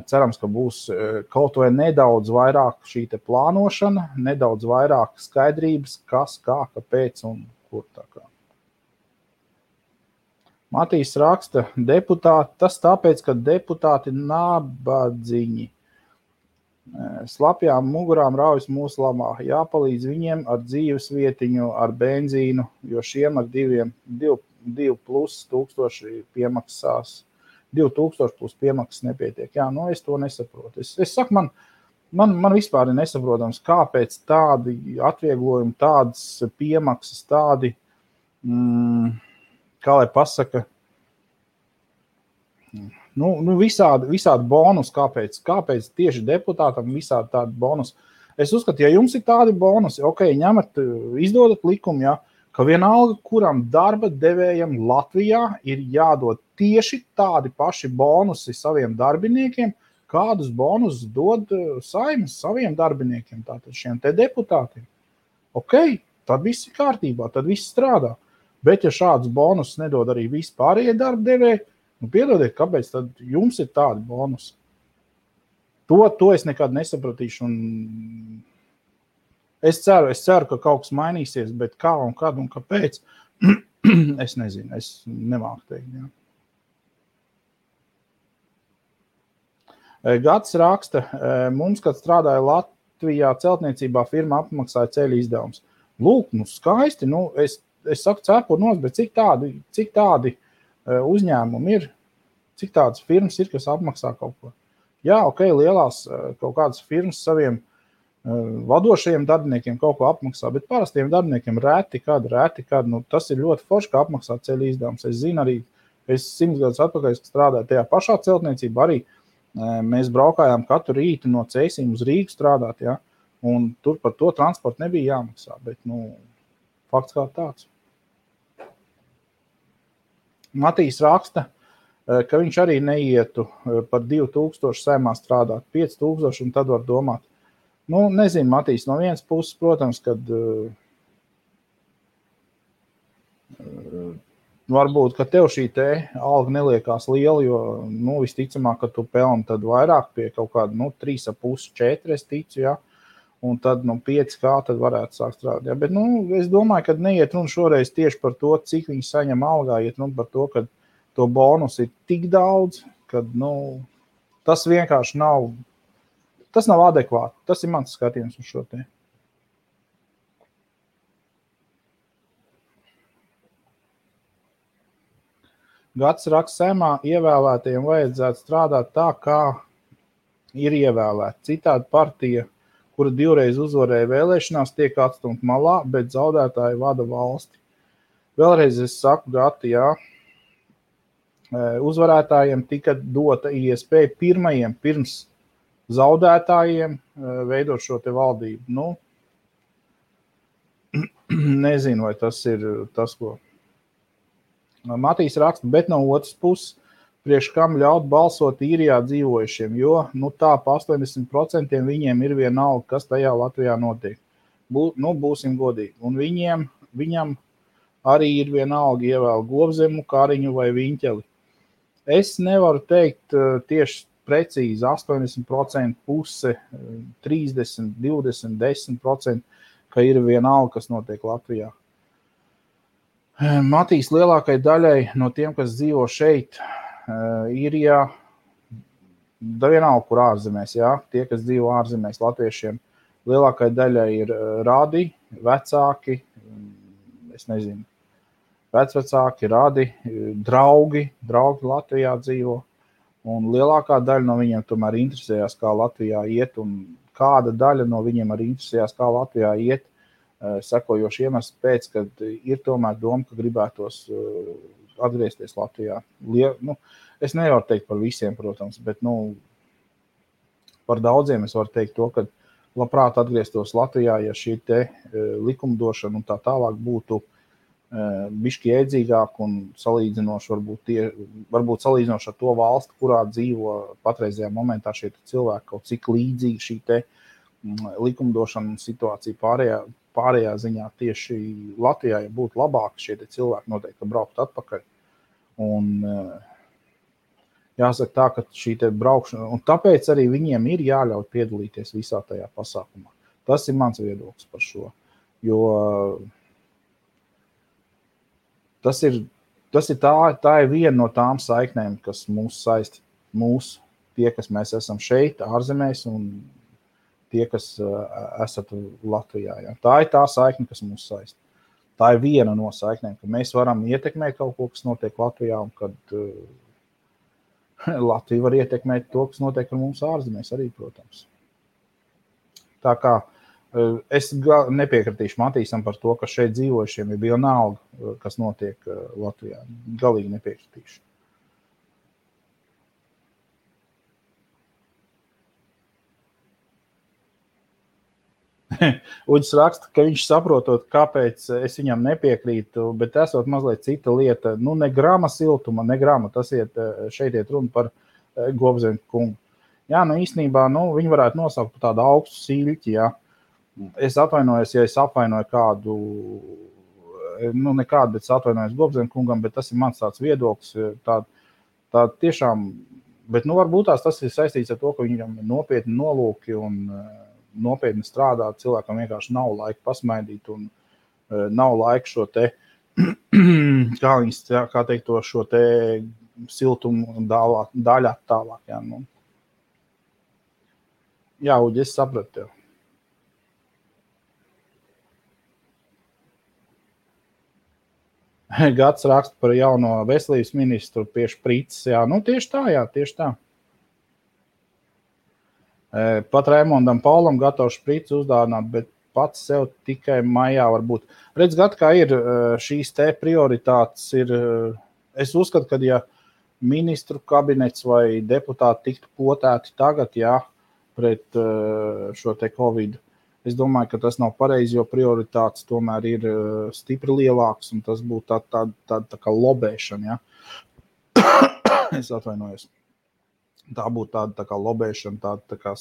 Cerams, ka būs kaut vai nedaudz vairāk šī te plānošana, nedaudz vairāk skaidrības, kas, kā, kāpēc un kur tā kā. Matīs raksta, deputāti, tas tāpēc, ka deputāti nabadziņi. Slapjām mugurām raujas mūsu lamā. Jāpalīdz viņiem ar dzīves vietiņu, ar benzīnu, jo šiem ar 2+ tūkstoši piemaksās. 2000 plus piemaksas nepietiek. Jā, es to nesaprotu. Es saku, man vispār ir nesaprotams, kāpēc tādi atvieglojumi, tādas piemaksas, tādi, kā lai pasaka, visādi bonus, kāpēc tieši deputātam visādi tādi bonus. Es uzskatu, ja jums ir tādi bonusi, ņemat, izdodat likumu, ja, ka vienalga, kuram darba devējam Latvijā ir jādod tieši tādi paši bonusi saviem darbiniekiem, kādus bonusus dod Saimas saviem darbiniekiem, tātad šiem te deputātiem. Tad viss ir kārtībā, tad viss strādā. Bet ja šādus bonusus nedod arī vispārējie darba devēji, piedodiet, kāpēc tad jums ir tādi bonusi? To es nekad nesapratīšu, un es ceru, ka kaut kas mainīsies, bet kā un kad un kāpēc, es nezinu, es nemāku teikt. Jā. Gads raksta, mums, kad strādāja Latvijā celtniecībā, firma apmaksāja ceļu izdevums. Lūk, skaisti, es saku cepur nos, bet cik tādi uzņēmumi ir, cik tādas firmas ir, kas apmaksā kaut ko. Jā, lielās kaut kādas firmas saviem Vadošajiem darbiniekiem kaut ko apmaksā, bet parastiem darbiniekiem rēti kad, nu, tas ir ļoti forši, kā apmaksā ceļu izdevums. Es zinu arī, es 100 gadus atpakaļ, kad strādāju tajā pašā celtniecībā, arī mēs braukājām katru rītu no Cēsīm uz Rīgu strādāt, ja, un tur par to transportu nebija jāmaksā, bet, nu, fakts kā tāds. Matīs raksta, ka viņš arī neietu par 2000 saimā strādāt, 5000, un tad var domāt. Nu, nezinu, Matīs, no vienas puses, protams, kad varbūt, ka tev šī te alga neliekās liela, jo, nu, visticamāk, ka tu pelni tad vairāk pie kaut kāda, nu, 3,5, 4, es ticu, ja, un tad, nu, 5K tad varētu sākt strādāt, ja, bet, nu, es domāju, ka neiet runa šoreiz tieši par to, cik viņi saņem algā, iet runa par to, ka to bonus ir tik daudz, ka, nu, tas vienkārši nav, tas nav adekvāti. Tas ir mans skatījums uz šo te. Gads raksta Saeimā, ievēlētajiem vajadzētu strādāt tā, kā ir ievēlēti. Citādi partija, kura 2 reiz uzvarēja vēlēšanās, tiek atstumta malā, bet zaudētāji vada valsti. Vēlreiz es saku, Gati, jā, uzvarētājiem tika dota iespēja pirmajiem pirms zaudētājiem veidot šo te valdību. Nu, nezinu, vai tas ir tas, ko Matīs raksta, bet no otras puses, priekš kam ļaut balsot īrijā dzīvojušiem, jo, nu tā, pa 80% viņiem ir vienalga, kas tajā Latvijā notiek. Nu, būsim godīgi. Un viņam arī ir vienalga ievēl Govzemu, Kariņu vai Viņķeli. Es nevaru teikt tieši precīzi 80%, puse 30, 20, 10%, ka ir vienalga, kas notiek Latvijā. Matīs, lielākai daļai no tiem, kas dzīvo šeit, īrijā, vienalga, kur ārzemēs, jā, tie, kas dzīvo ārzemēs latviešiem, lielākai daļai ir radi, vecāki, es nezinu, vecvecāki, radi, draugi Latvijā dzīvo. Un lielākā daļa no viņiem tomēr interesējās, kā Latvijā iet, un kāda daļa no viņiem arī interesējās, kā Latvijā iet, sekojoši iemesli pēc, kad ir tomēr doma, ka gribētos atgriezties Latvijā. Nu, es nevaru teikt par visiem, protams, bet, nu, par daudziem es varu teikt to, ka labprāt atgrieztos Latvijā, ja šī te likumdošana un tā tālāk būtu bišķi iedzīgāk un salīdzinoši varbūt salīdzinoši ar to valsti, kurā dzīvo patreizajā momentā šie cilvēki, kaut cik līdzīgi šī te likumdošana un situācija pārējā ziņā tieši Latvijā, ja būtu labāk, šie te cilvēki noteikti braukt atpakaļ. Un jāsaka tā, ka šī te braukšana, un tāpēc arī viņiem ir jāļauj piedalīties visā tajā pasākumā. Tas ir mans viedoklis par šo, jo tā ir viena no tām saiknēm, kas mūs saist, tie, kas mēs esam šeit, ārzemēs, un tie, kas esat Latvijā. Ja. Tā ir tā saikne, kas mūs saist. Tā ir viena no saiknēm, ka mēs varam ietekmēt kaut ko, kas notiek Latvijā, un kad Latvija var ietekmēt to, kas notiek ar mums ārzemēs arī, protams. Tā kā es nepiekritīšu Matīsam par to, ka šeit dzīvojušiem ir vienalga, kas notiek Latvijā. Galīgi nepiekritīšu. Uģis raksta, ka viņš saprotot, kāpēc es viņam nepiekrītu, bet esot mazliet cita lieta. Nu, ne grama siltuma, tas šeit iet runa par Govzemu kungu. Jā, nu īstenībā, viņi varētu nosaukt par tādu augstu siļķi, jā. Es atvainojos, ja es apvainoju kādu, nekādu, bet es atvainojos Govzemu kungam, bet tas ir mans tāds viedoklis, tā tiešām, bet varbūt tas ir saistīts ar to, ka viņam ir nopietni nolūki un nopietni strādāt, cilvēkam vienkārši nav laika pasmaidīt un nav laika šo te, kā teikt to, šo te siltumu daļāt tālāk, jā, Jā, Uģi, es sapratu tev. Gads raksta par jauno veselības ministru pie šprices. Jā, tieši tā, jā, tieši tā. Pat Raimondam Paulam gatavs šprici uzdāvināt, bet pats sev tikai maijā var būt. Redz, kā ir šīs te prioritātes ir, es uzskatu, ka ja ministru kabinets vai deputāti tiktu potēti tagad, pret šo te Covid, es domāju, ka tas nav pareizi, jo prioritātes tomēr ir stipri lielāks, un tas būtu tā kā lobēšana, Es atvainojos. Tā būtu tāda tā kā lobēšana, tāda tā kā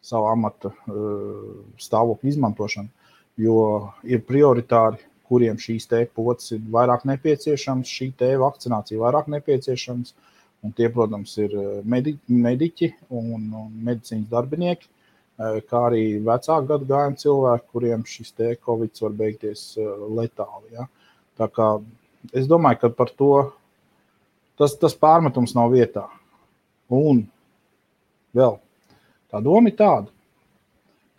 savu amata stāvokļu izmantošana, jo ir prioritāri, kuriem šīs te potes ir vairāk nepieciešams, šī te vakcinācija vairāk nepieciešams, un tie, protams, ir mediķi un medicīnas darbinieki, kā arī vecāku gadagājumu cilvēki, kuriem šis te Covid var beigties letāli. Ja? Tā kā es domāju, ka par to tas pārmetums nav vietā. Un vēl tā doma ir tāda.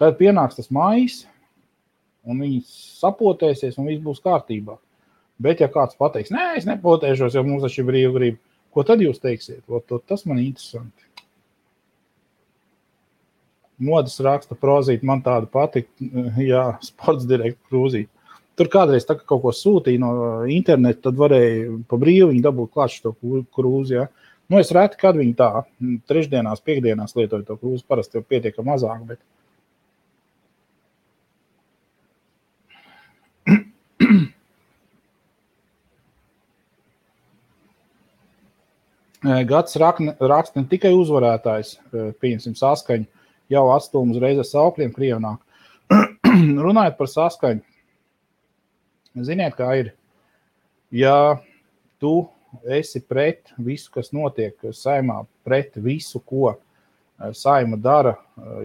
Tad pienāks tas maijs, un viņi sapotēsies, un viss būs kārtībā. Bet ja kāds pateiks, nē, es nepotēšos, jo mums taču ir brīvgrība, ko tad jūs teiksiet? Tas man interesanti. Modas raksta prozīt, man tāda patika, sports direkta krūzīt. Tur kādreiz tā, kaut ko sūtīja no interneta, tad varēja pa brīvu viņi dabūt klāt šo krūzi, es reti, kad viņi tā trešdienās, piekdienās lietoju to krūzi, parasti jau pietiek mazāk, bet Gads raksta ne tikai uzvarētājs, pieņemsim saskaņu, jau atstūm uzreiz ar saukļiem Krievnāk. Runājot par saskaņu, ziniet, kā ir, ja tu esi pret visu, kas notiek saimā, pret visu, ko saima dara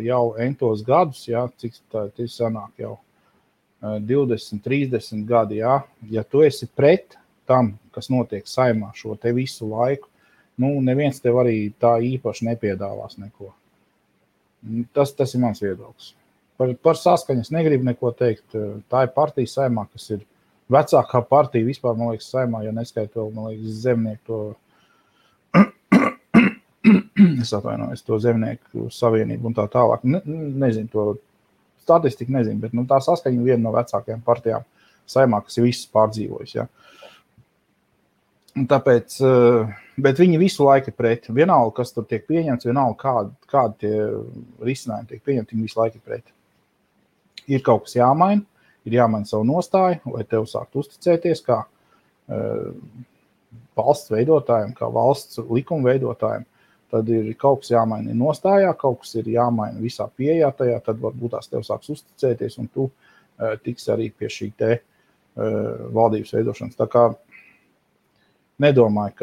jau entos gadus, cik tā sanāk jau 20, 30 gadi, ja tu esi pret tam, kas notiek saimā šo te visu laiku, neviens tev arī tā īpaši nepiedāvās neko. Tas ir mans viedoklis. Par saskaņas negribu neko teikt. Tā ir partija saimā, kas ir vecākā partija vispār, man liekas, saimā, ja neskait vēl, man liekas, zemnieku to, es atvainojos, to zemnieku savienību un tā tālāk. Nezinu to statistiku, nezinu, bet tā saskaņa ir viena no vecākajām partijām saimā, kas ir visas pārdzīvojas, Tāpēc, bet viņi visu laiku ir pret. Vienalga, kas tur tiek pieņemts, vienalga, kādi tie risinājumi tiek pieņemti, viņi visu laiku ir pret. Ir kaut kas jāmaina, ir jāmaina savu nostāju, lai tev sākt uzticēties kā valsts veidotājiem, kā valsts likuma veidotājiem. Tad ir kaut kas jāmaina nostājā, kaut kas ir jāmaina visā pieejā tajā, tad varbūt tās tev sāks uzticēties un tu tiks arī pie šī te valdības veidošanas. Tā kā nedomāju,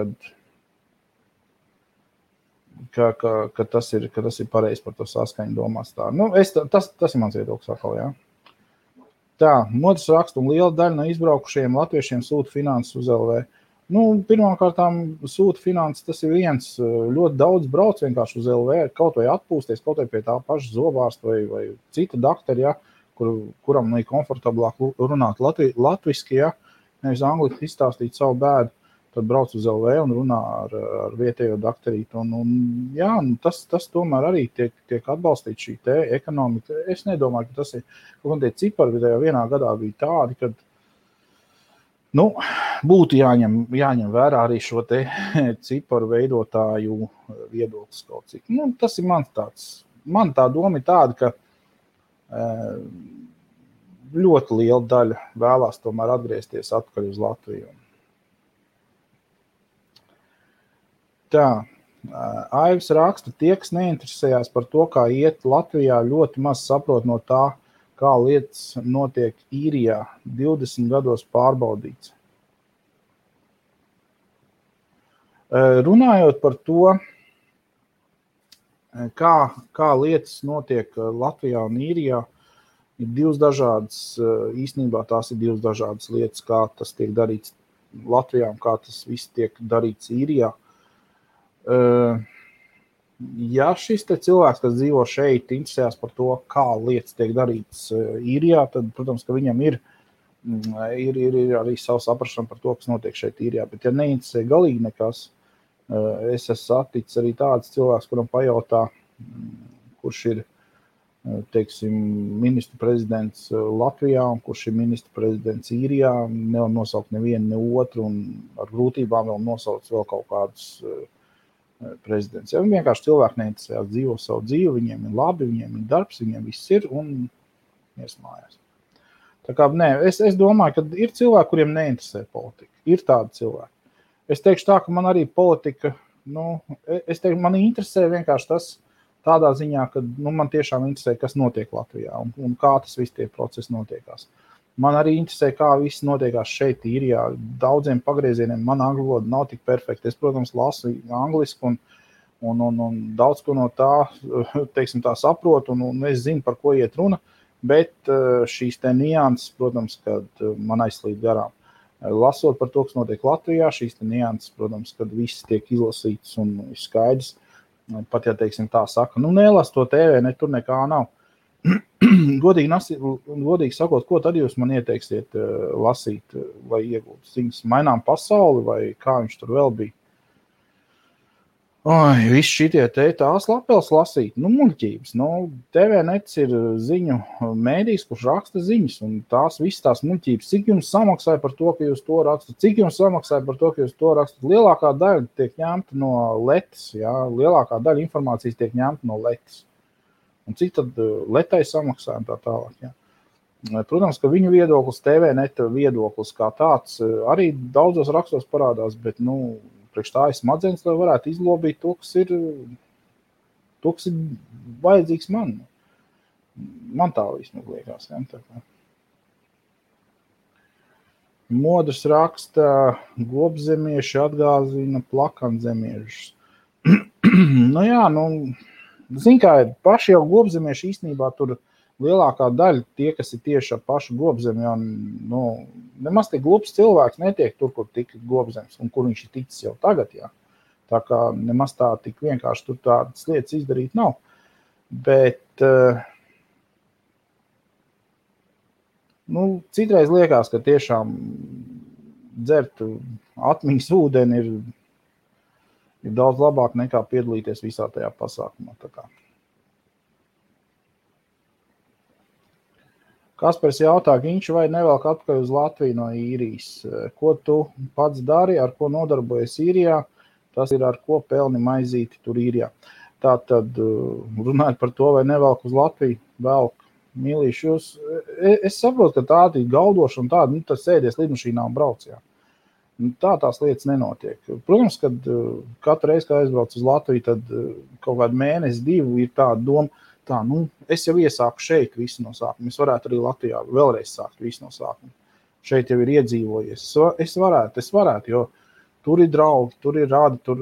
ka tas ir pareizi par to saskaņu domās tā. Tas ir mans viedoklis atkal, Tā, Modas raksta un liela daļa no izbraukušajiem latviešiem sūta finanses uz LV. Pirmkārtām sūta finanses, tas ir viens, ļoti daudz brauc vienkārši uz LV, kaut vai atpūsties, kaut vai pie tā paša zobārsta vai cita daktari, kuram ir komfortablāk runāt latviski, nevis angliski izstāstīt savu bēdu. Tad brauc uz LV un runā ar vietējo daktarītu. Tas tomēr arī tiek atbalstīts šī te ekonomika. Es nedomāju, ka tas ir, kaut kā tie cipari vidējā vienā gadā bija tādi, kad būtu jāņem vērā arī šo te ciparu veidotāju viedoklis kaut cik. Tas ir man tā doma ir tāda, ka ļoti liela daļa vēlās tomēr atgriezties atpakaļ uz Latviju. Tā, Aivs raksta, tie, kas neinteresējās par to, kā iet Latvijā, ļoti maz saprot no tā, kā lietas notiek Īrijā, 20 gados pārbaudīts. Runājot par to, kā lietas notiek Latvijā un Īrijā, ir divas dažādas, īstenībā tās ir divas dažādas lietas, kā tas tiek darīts Latvijā un kā tas viss tiek darīts Īrijā. Ja šis te cilvēks, kas dzīvo šeit, interesējās par to, kā lietas tiek darītas Īrijā, tad, protams, ka viņam ir arī savu saprašanu par to, kas notiek šeit Īrijā. Bet, ja neinteresē galīgi nekas, es esmu saticis arī tāds cilvēks, kuram pajautā, kurš ir, teiksim, ministru prezidents Latvijā un kurš ir ministru prezidents Īrijā, nevar nosaukt nevienu, ne otru, un ar grūtībām vēl nosaukt vēl kaut kādus prezidents. Ja vienkārši cilvēki neinteresējās, dzīvo savu dzīvi, viņiem ir labi, viņiem ir darbs, viņiem viss ir un iesmājās. Tā kā, nē, es domāju, ka ir cilvēki, kuriem neinteresē politika. Ir tādi cilvēki. Es teikšu tā, ka man arī politika, es teikšu, man interesē vienkārši tas tādā ziņā, ka man tiešām interesē, kas notiek Latvijā un kā tas viss tie procesi notiekās. Man arī interesē, kā viss notiekās šeit Īrijā. Daudziem pagriezieniem man angļu valoda nav tik perfekta. Es, protams, lasu angliski un daudz ko no tā, teiksim, tā saprotu un es zinu, par ko iet runa, bet šīs te nianses, protams, kad man aizslīd garām. Lasot par to, kas notiek Latvijā, šīs te nianses, protams, kad viss tiek izlasīts un ir skaidrs, pat ja, teiksim, tā saka, nelas to TV, tur nekā nav. Godīgi sakot, ko tad jūs man ieteiksiet lasīt vai iegūt ziņas? Mainām pasauli vai kā viņš tur vēl bija? Visi šitie tās lapels lasīt, muļķības. TVNets ir ziņu mēdījis, kurš raksta ziņas, un visas tās muļķības. Cik jums samaksāja par to, ka jūs to rakstat? Cik jums samaksāja par to, ka jūs to rakstat? Lielākā daļa tiek ņemta no letes, jā? Lielākā daļa informācijas tiek ņemta no letes. Un cik tad letai samaksāja tā tālāk, jā? Protams, ka viņu viedoklis, TVNet viedoklis kā tāds, arī daudzos rakstos parādās, bet, priekš tā ir smadzenes, lai varētu izlobīt to, kas ir vajadzīgs man. Man tā vismaz liekas. Ja? Modrs raksta, globzemieši atgāzina plakanzemiešus. Zin kā, paši jau globzemieši īstenībā tur lielākā daļa tie, kas ir tieši ar pašu globzemi, nemaz tik globs cilvēks netiek tur, kur tika globzems un kur viņš ir ticis jau tagad, jā. Tā kā nemaz tā tik vienkārši tur tādas lietas izdarīt nav. Bet, citreiz liekas, ka tiešām dzert atmiņas ūdeni ir daudz labāk nekā piedalīties visā tajā pasākumā. Tā kā. Kaspars jautā, Ginču, vai nevelk atpakaļ uz Latviju no Īrijas? Ko tu pats dari, ar ko nodarbojies Īrijā? Tas ir, ar ko pelni maizīti tur Īrijā. Tātad, runājot par to, vai nevelk uz Latviju, velk. Mīlīši, es saprotu, ka tāda ir galdoša un tāda, tas sēdies lidmašīnā un brauc, jā. Tā tās lietas nenotiek. Protams, kad katru reizi, kad aizbrauc uz Latviju, tad kaut kādu mēnesi, 2 ir tāda doma, es jau iesāku šeit visu no sākuma. Es varētu arī Latvijā vēlreiz sākt visu no sākuma. Šeit jau ir iedzīvojies. Es varētu, jo tur ir draugi, tur ir rādi, tur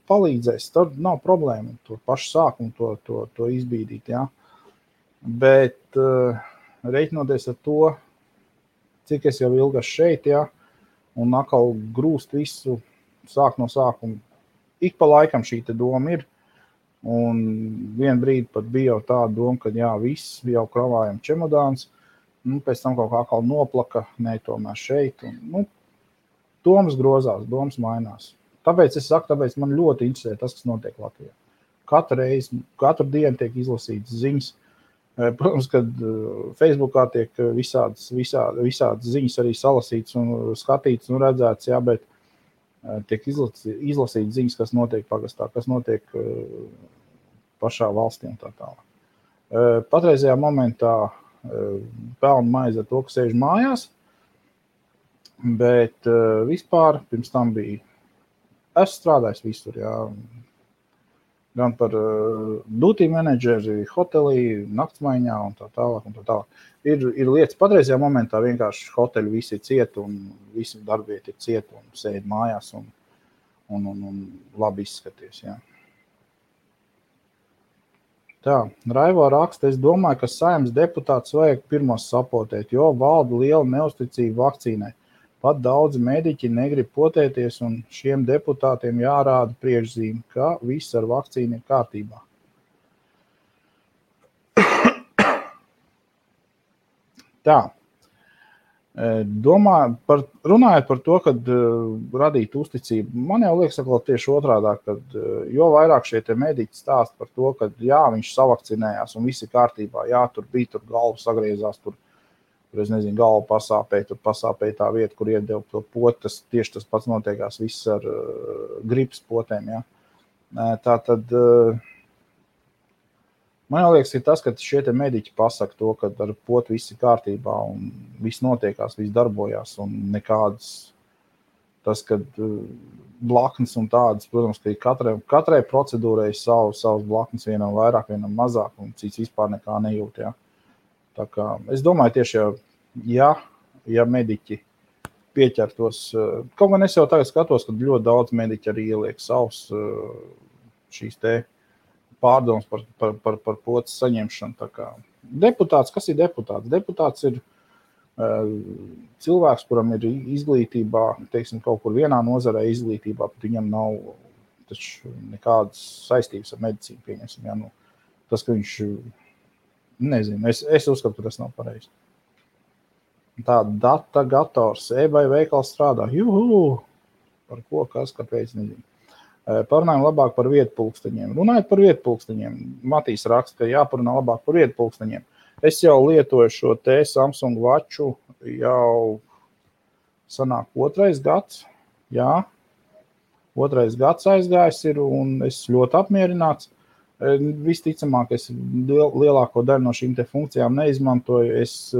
palīdzēs. Tur nav problēma tur pašu sākumu to izbīdīt. Ja? Bet reiķinoties ar to, cik es jau ilgas šeit, ja? Un atkal grūst visu sāk no sākuma. Ik pa laikam šī te doma ir. Un vien brīdi pat bija jau tāda doma, ka viss jau kravājam čemodāns, pēc tam kaut kā atkal noplaka, tomēr šeit. Un, domas grozās, domas mainās. Tāpēc es saku, man ļoti interesē tas, kas notiek Latvijā. Katru dienu tiek izlasītas ziņas. Protams, kad Facebookā tiek visādas ziņas arī salasītas un skatītas un redzētas, jā, bet tiek izlasītas ziņas, kas notiek pagastā, kas notiek pašā valstī un tā tālāk. Patreizajā momentā pelnu maizi ar to, ka sēž mājās, bet vispār pirms tam bija, es strādājis visur, jā, gan par duty menedžeri, hotelī, naktsmaiņā un tā tālāk un tā tālāk. Ir lietas patreizajā momentā vienkārši hoteļi visi ir ciet un visi darbieti ir ciet un sēd mājās un labi izskaties, jā. Tā, Raivo raksta, es domāju, ka Saeimas deputāts vajag pirmos sapotēt, jo valda liela neusticība vakcīnai. Pat daudzi mediķi negrib potēties un šiem deputātiem jārāda priekšzīme, ka viss ar vakcīnu ir kārtībā. Tā, Runājot par to, kad radīt uzticību, man jau liekas, ka tieši otrādāk, kad jo vairāk šie te mediķi stāsta par to, ka jā, viņš savakcinējās un viss ir kārtībā, jā, tur bija, tur galva sagriezās, tur es nezinu, galva pasāpēja, tur pasāpēja tā vieta, kur iedeva to potu, tieši tas pats notiekās viss ar gripas potēm, jā. Tā tad... Man liekas, ir tas, ka šie te mediķi pasaka to, ka ar potu viss ir kārtībā un viss notiekās, viss darbojās un nekādas tas, kad blaknes un tādas, protams, ka katrai procedūrai savas blaknes, vienam vairāk, vienam mazāk un cits vispār nekā nejūt, jā. Tā kā es domāju tieši, ja mediķi pieķertos, kaut gan es jau tagad skatos, ka ļoti daudz mediķi arī ieliek savus šīs te pārdomas par potes saņemšanu. Tā kā deputāts, kas ir deputāts? Deputāts ir cilvēks, kuram ir izglītībā, teiksim, kaut kur vienā nozarē izglītībā, bet viņam nav taču nekādas saistības ar medicīnu, pieņemsim. Ja? Nu, tas, ka viņš, nezinu, es uzskatu, ka tas nav pareizi. Tā data gators, eBay veikals strādā, par ko, kas, kāpēc, nezinu. Parunājam labāk par vietpulksteņiem. Runājot par vietpulksteņiem, Matīs raksta, ka jāparunā labāk par vietpulksteņiem. Es jau lietoju šo te Samsung Watchu jau sanāk 2. gads. Jā, 2. gads aizgājis ir un es ļoti apmierināts. Visticamāk, es lielāko daļu no šīm te funkcijām neizmantoju. Es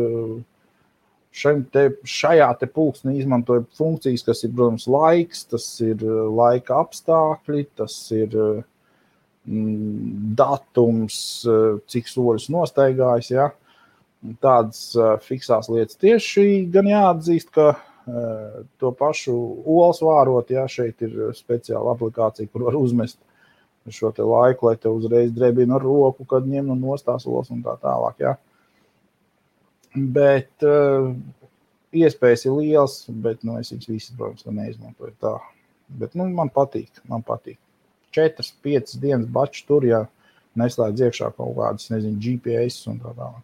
šajā te pulkstenī izmantoju funkcijas, kas ir, protams, laiks, tas ir laika apstākļi, tas ir datums, cik soļus nostaigājis, ja. Tādas fiksās lietas tieši gan jāatzīst, ka to pašu olas vārot, ja, šeit ir speciāla aplikācija, kur var uzmest šo te laiku, lai te uzreiz drebina ar roku, kad ņem un nostās olas un tā tālāk, ja. Bet iespējas ir liels, bet es viņas visas, protams, neizmantoju tā. Bet man patīk. 4-5 dienas bačs tur, ja neslēdz iekšā kaut kādas, nezinu, GPS un tā tālāk.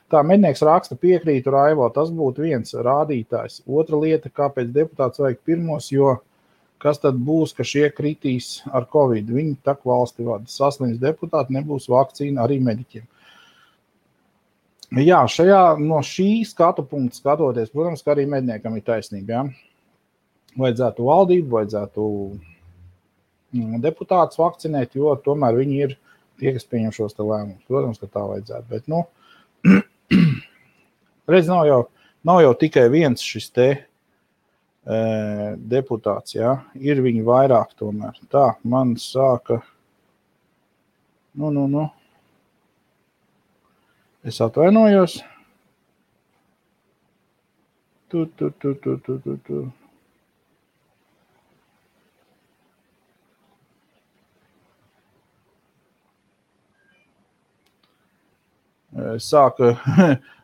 Tā, mednieks raksta, piekrītu Raivo, tas būtu viens rādītājs. Otra lieta, kāpēc deputāts vajag pirmos, jo kas tad būs, ka šie kritīs ar Covid? Viņi tak valsti vada. Saslims deputāti, nebūs vakcīna arī mediķiem. Jā, no šī skatu punkta skatoties, protams, ka arī medniekam ir taisnība. Ja? Vajadzētu valdību, vajadzētu deputātus vakcinēt, jo tomēr viņi ir tie, kas pieņem šos te lēmumus. Protams, ka tā vajadzētu, bet, redz, nav jau tikai viens šis te deputāts, ja? Ir viņi vairāk tomēr. Tā, man sāka, Es atvainojos. Tu. Sāka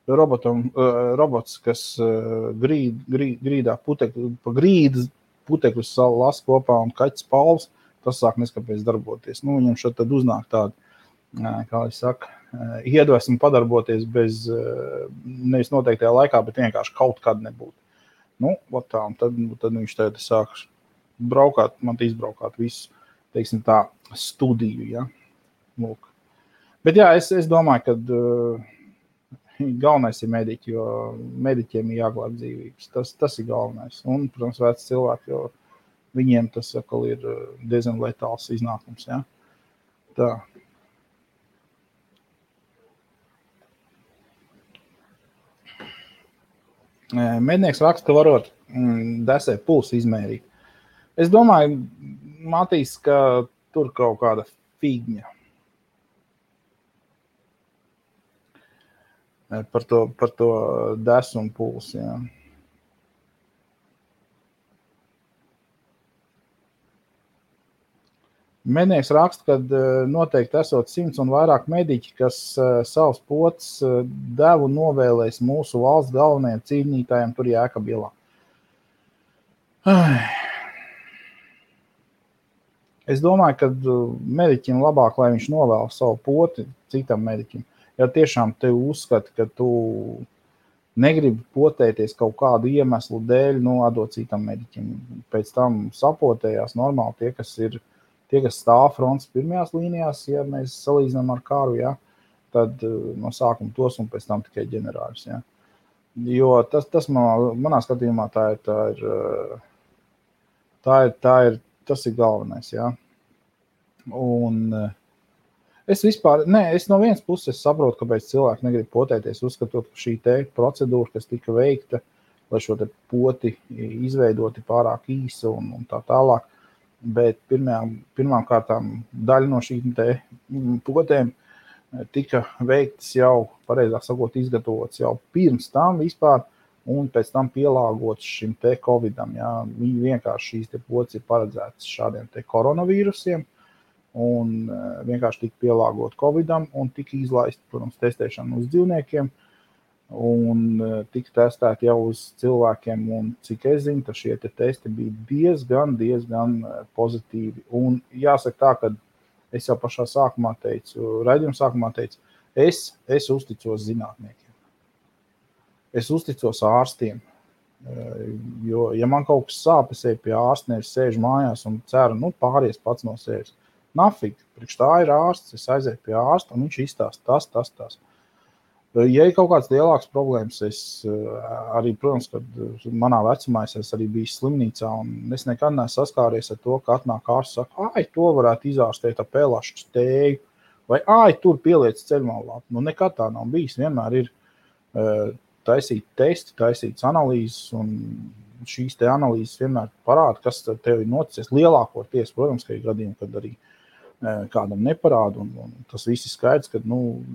robots, kas grīdā pa grīdas putekļus las kopā un kaķis Pauls, tas sāk neskapēc darboties. Viņam šeit tad uznāk tādu, kā es saku, iedvesmu padarboties bez, nevis noteiktajā laikā, bet vienkārši kaut kad nebūt. Tā, un tad viņš tagad sāk braukāt, man izbraukāt visu, teiksim tā, studiju, ja. Lūk. Bet jā, es domāju, ka galvenais ir mediķi, jo mediķiem ir jāglāb dzīvības. Tas ir galvenais. Un, protams, veci cilvēki, jo viņiem tas atkal ir diezgan letāls iznākums, ja. Tā. Mednieks raksta, ka varot desē pulsu izmērīt. Es domāju, Matīs, ka tur kaut kāda figņa. Par to desu un pulsu, jā. Mednieks raksta, ka noteikti esot 100 un vairāk mediķi, kas savus potes devu novēlēs mūsu valsts galvenajiem cīnītājiem tur Jēkabielā. Es domāju, ka mediķim labāk, lai viņš novēl savu poti citam mediķim. Ja tiešām te uzskati, ka tu negrib potēties kaut kādu iemeslu dēļ, atdot citam mediķim. Pēc tam sapotējās normāli tie, kas stāv frontes pirmajās līnijās, ja mēs salīdzinām ar karu, ja, tad no sākuma tos un pēc tam tikai ģenerāļus. Ja. Jo tas manā skatījumā tas ir galvenais. Ja. Un es no vienas puses saprotu, kāpēc cilvēki negrib potēties, uzskatot, ka šī te procedūra, kas tika veikta, lai šo te poti izveidoti pārāk īsa un tā tālāk, bet pirmām kārtām daļa no šīm te potēm tika veiktas jau, pareizāk sakot, izgatavotas jau pirms tam vispār, un pēc tam pielāgotas šim te Covidam. Ja. Viņi vienkārši šīs te potes ir paredzētas šādiem te koronavīrusiem, un vienkārši tika pielāgot Covidam, un tika izlaist, protams, testēšana uz dzīvniekiem, un tika testēti jau uz cilvēkiem, un cik es zinu, ka šie te testi bija diezgan pozitīvi. Un jāsaka tā, ka es jau pašā sākumā teicu, raidījuma sākumā teicu, es uzticos zinātniekiem. Es uzticos ārstiem, jo, ja man kaut kas sāp, es eju pie ārsta, nevis sēžu mājās un ceru, pāries pats no sevis. Nafig, priekš tā ir ārsts, es aizēju pie ārsta, un viņš izstāsta tas. Ja ir kaut kāds lielāks problēmas, es arī, protams, kad manā vecumā es arī biju slimnīcā, un es nekad neesmu saskāries ar to, ka atnāk ārsts saka, to varētu izārstēt ar pelašu stēju, vai tur pieliec ceļmalvāpu. Nekad tā nav bijis, vienmēr ir taisīt testi, taisīts analīzes, un šīs te analīzes vienmēr parāda, kas tev ir noticis. Lielākoties, protams, ka ir gadījumi, kad arī kādam neparāda, un tas viss ir skaidrs, ka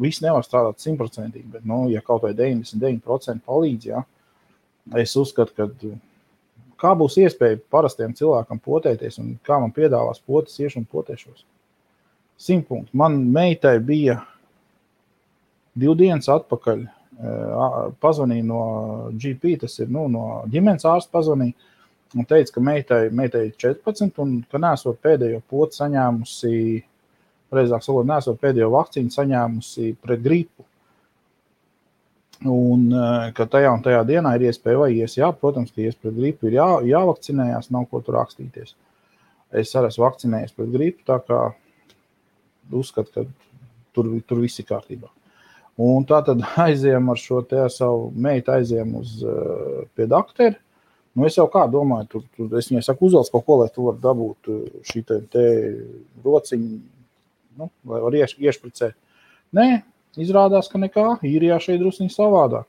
viss nevar strādāt 100%, bet ja kaut vai 99% palīdz, ja, es uzskatu, ka kā būs iespēja parastiem cilvēkam potēties, un kā man piedāvās potes, iešu un potēšos. 100 punkti. Man meitai bija 2 dienas atpakaļ, pazvanīja no GP, tas ir no ģimenes ārsta pazvanīja, un teica, ka meitai 14, un ka neesot pēdējo poti saņēmusi, pareizāk sakot, neesot pēdējo vakcīnu saņēmusi pret gripu. Un ka tajā un tajā dienā ir iespēja vai ies, protams, ka ies pret gripu ir jāvakcinējās, nav ko tur rakstīties. Es arī esmu vakcinējies pret gripu, tā kā uzskatu, ka tur viss ir kārtībā. Un tā tad aizējam ar šo te savu meitu, aizējam pie dakteri. Es jau kā domāju, es viņai saku, uzvelc kaut ko, lai tu var dabūt šī te rociņu, lai var iešpricēt. Nē, izrādās, ka nekā, īrijā šeit drusciņi savādāk.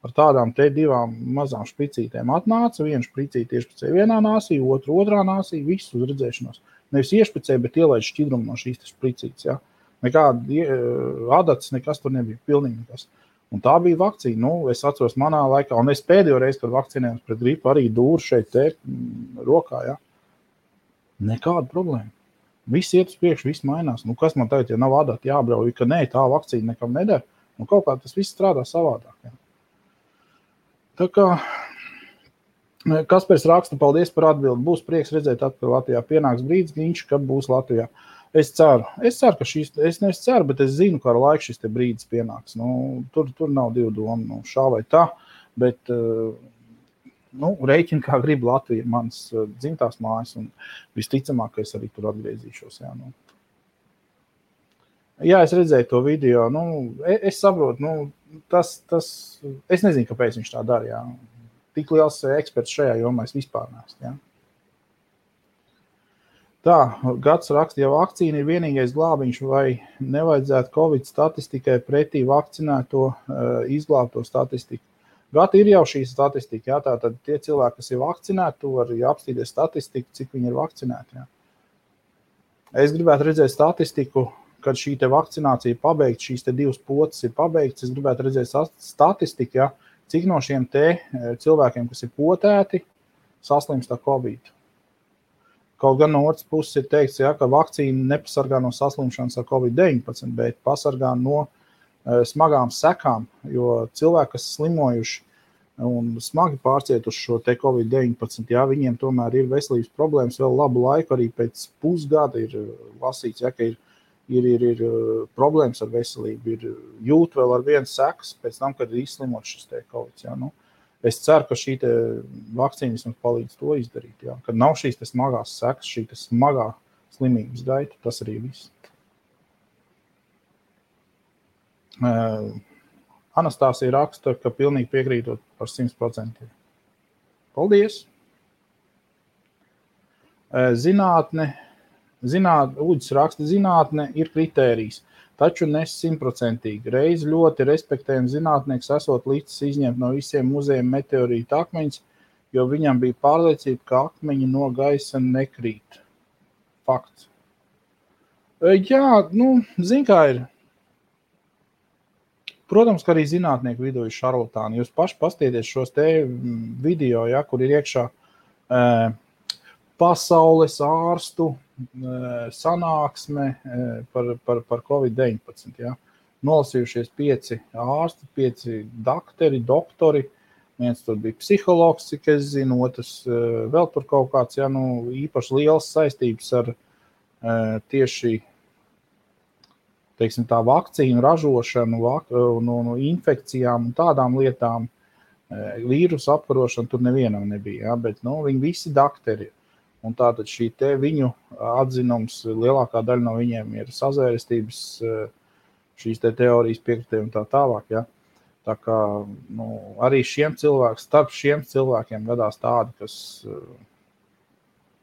Ar tādām te 2 mazām špricītēm atnāca, viena špricīte iešpricēja vienā nāsī, otrā nāsī, visu uz redzēšanos. Nevis iešpricēja, bet ielaid šķidrumu no šīs špricītes, ja. Nekāda adats, nekas tur nebija, pilnīgi nekas. Un tā bija vakcīna. Es atceros manā laikā, un es pēdējo reizi, kad vakcinējos pret gripu, arī dūru šeit te rokā, ja. Nekāda problēma. Viss iet uz priekšu, viss mainās. Kas man tagad, ja nav adati jābrauj, ka nē, tā vakcīna nekam nedara, kaut kā tas viss strādā savādāk. Ja. Tā kā Kaspars raksta, paldies par atbildi. Būs prieks redzēt atpakaļ Latvijā. Pienāks brīdis, viņš, kad būs Latvijā. Es ceru, ka es nevis ceru, bet es zinu, ka ar laiku šis te brīdis pienāks. Tur nav 2 domu, šā vai tā, bet rēķini, kā grib Latvija, mans dzimtās mājas, un visticamāk, ka es arī tur atgriezīšos. Jā, es redzēju to video, es saprotu, es nezinu, kāpēc viņš tā dara, jā. Tik liels eksperts šajā jomā es vispār neesmu, jā. Tā, Gads raksta, ja vakcīna ir vienīgais glābiņš, vai nevajadzētu Covid statistikai pretī vakcinēto izglābto statistiku. Gati ir jau šī statistika, jā, tātad tie cilvēki, kas ir vakcinēti, tu vari apstīties statistiku, cik viņi ir vakcinēti, jā. Es gribētu redzēt statistiku, kad šī te vakcinācija pabeigta, šīs te 2 potes ir pabeigts, es gribētu redzēt statistiku, jā, cik no šiem te cilvēkiem, kas ir potēti, saslimst ar Covid. Kaut gan no otras puses ir teikts, ka vakcīna nepasargā no saslimšanas ar Covid-19, bet pasargā no smagām sekām, jo cilvēki, kas slimojuši un smagi pārcietuši šo te Covid-19, viņiem tomēr ir veselības problēmas vēl labu laiku, arī pēc pusgada ir lasīts, ka ir ir problēmas ar veselību, ir jūt vēl ar vienu sekas pēc tam, kad ir izslimot šis te Covid. Ja? Nu, es ceru, ka šī te vakcīna mums palīdz to izdarīt. Ja? Kad nav šīs te smagās sekas, šī te smagā slimības gaita, tas arī viss. Anastāsija raksta, ka pilnīgi piekrītot par 100%. Paldies! Uģis raksta, zinātne ir kritērijs, taču ne 100%. Reiz ļoti respektējams zinātnieks esot līdz izņemt no visiem muzejiem meteorītu akmeņus, jo viņam bija pārliecība, ka akmeņi no gaisa nekrīt. Fakts. Jā, zin kā ir. Protams, ka arī zinātnieku vidū ir šarlatāni. Jūs paši pastieties šos te video, ja, kur ir iekšā pasaules ārstu sanāksme par Covid-19. Ja. Nolasījušies 5 ārsti, 5 doktori. Viens tur bija psihologs, cik es zinu, otrs vēl tur kaut kāds, ja, īpaši liels saistības ar tieši teiksim, tā vakcīnu ražošanu, no infekcijām un tādām lietām, vīrusu apkarošanu tur nevienam nebija, ja, bet viņi visi dakteri. Un tātad šī te viņu atzinums, lielākā daļa no viņiem ir sazvērestības, šīs te teorijas piekritēji un tā tālāk. Ja. Tā kā arī starp šiem cilvēkiem gadās tādi, kas,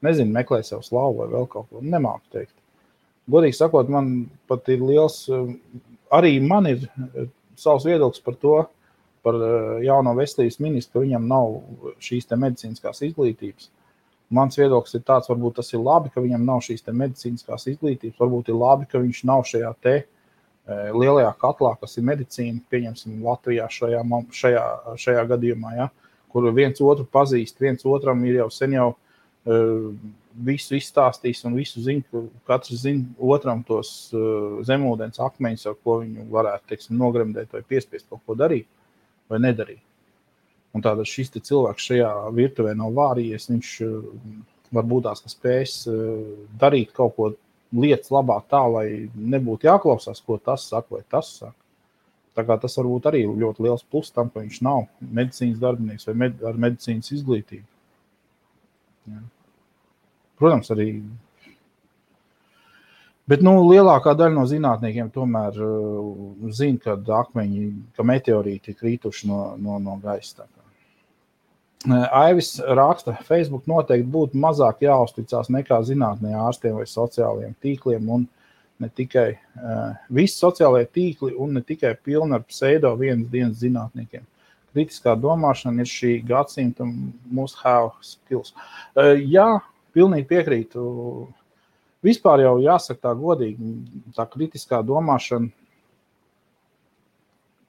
nezinu, meklē sev slavu vai vēl kaut ko, nemāku teikt. Godīgi sakot, man pat ir liels, arī man ir savs viedoklis par to, par jauno veselības ministru, ka viņam nav šīs te medicīniskās izglītības. Mans viedoklis ir tāds, varbūt tas ir labi, ka viņam nav šīs te medicīniskās izglītības, varbūt ir labi, ka viņš nav šajā te lielajā katlā, kas ir medicīna, pieņemsim Latvijā šajā gadījumā, ja, kur viens otru pazīst, viens otram ir jau sen jau visu izstāstīs un visu zina, katrs zina otram tos zemūdens akmeņus, ar ko viņu varētu, teiksim, nogremdēt vai piespiest kaut ko darīt vai nedarīt. Un tātad šis te cilvēks šajā virtuvē nav vārījies, viņš varbūt tās, ka spējas darīt kaut ko lietas labāk tā, lai nebūtu jāklausās, ko tas saka vai tas saka. Tā kā tas varbūt arī ļoti liels plus tam, ka viņš nav medicīnas darbinieks vai ar medicīnas izglītību. Jā. Protams, arī. Bet lielākā daļa no zinātniekiem tomēr zina, ka meteorīti ir krītuši no gaisa. Aivis raksta, Facebook noteikti būtu mazāk jāuzticās nekā zinātnē ārstiem vai sociālajiem tīkliem un ne tikai visi sociālajie tīkli un ne tikai pilni ar pseido vienas dienas zinātniekiem. Kritiskā domāšana ir šī gadsimta must have skills. Jā, pilnīgi piekrītu. Vispār jau jāsaka tā godīgi, tā kritiskā domāšana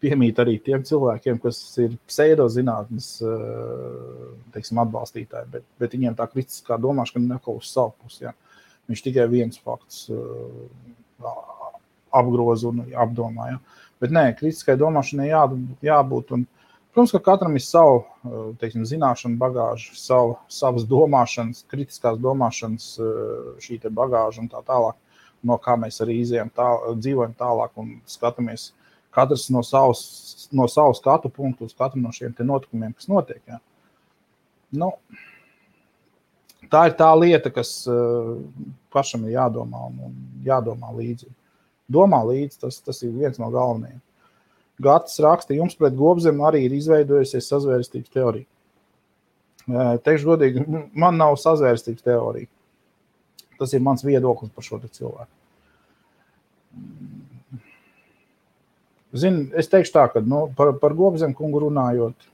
piemīt arī tiem cilvēkiem, kas ir pseidozinātnes, teiksim, atbalstītāji, bet viņiem tā kritiskā domāšana neko uz savu pusi. Ja. Viņš tikai viens fakts apgroz un apdomā. Ja. Bet nē, kritiskai domāšanai jābūt. Un, protams, ka katram ir savu, teiksim, zināšanu bagāžu, savas domāšanas, kritiskās domāšanas šī te bagāža un tā tālāk, no kā mēs arī dzīvojam tālāk un skatāmies katrs no savu skatu punktu uz katru no šiem te notikumiem, kas notiek. Ja. Tā ir tā lieta, kas pašam ir jādomā un jādomā līdzi. Domā līdzi, tas ir viens no galvenajiem. Gatis raksta, jums pret Gobzemi arī ir izveidojusies sazvērestības teorija. Teikšu godīgi, man nav sazvērestības teorija. Tas ir mans viedoklis par šo te cilvēku. Zini, es teikšu tā, ka par Gobzemi kungu runājot,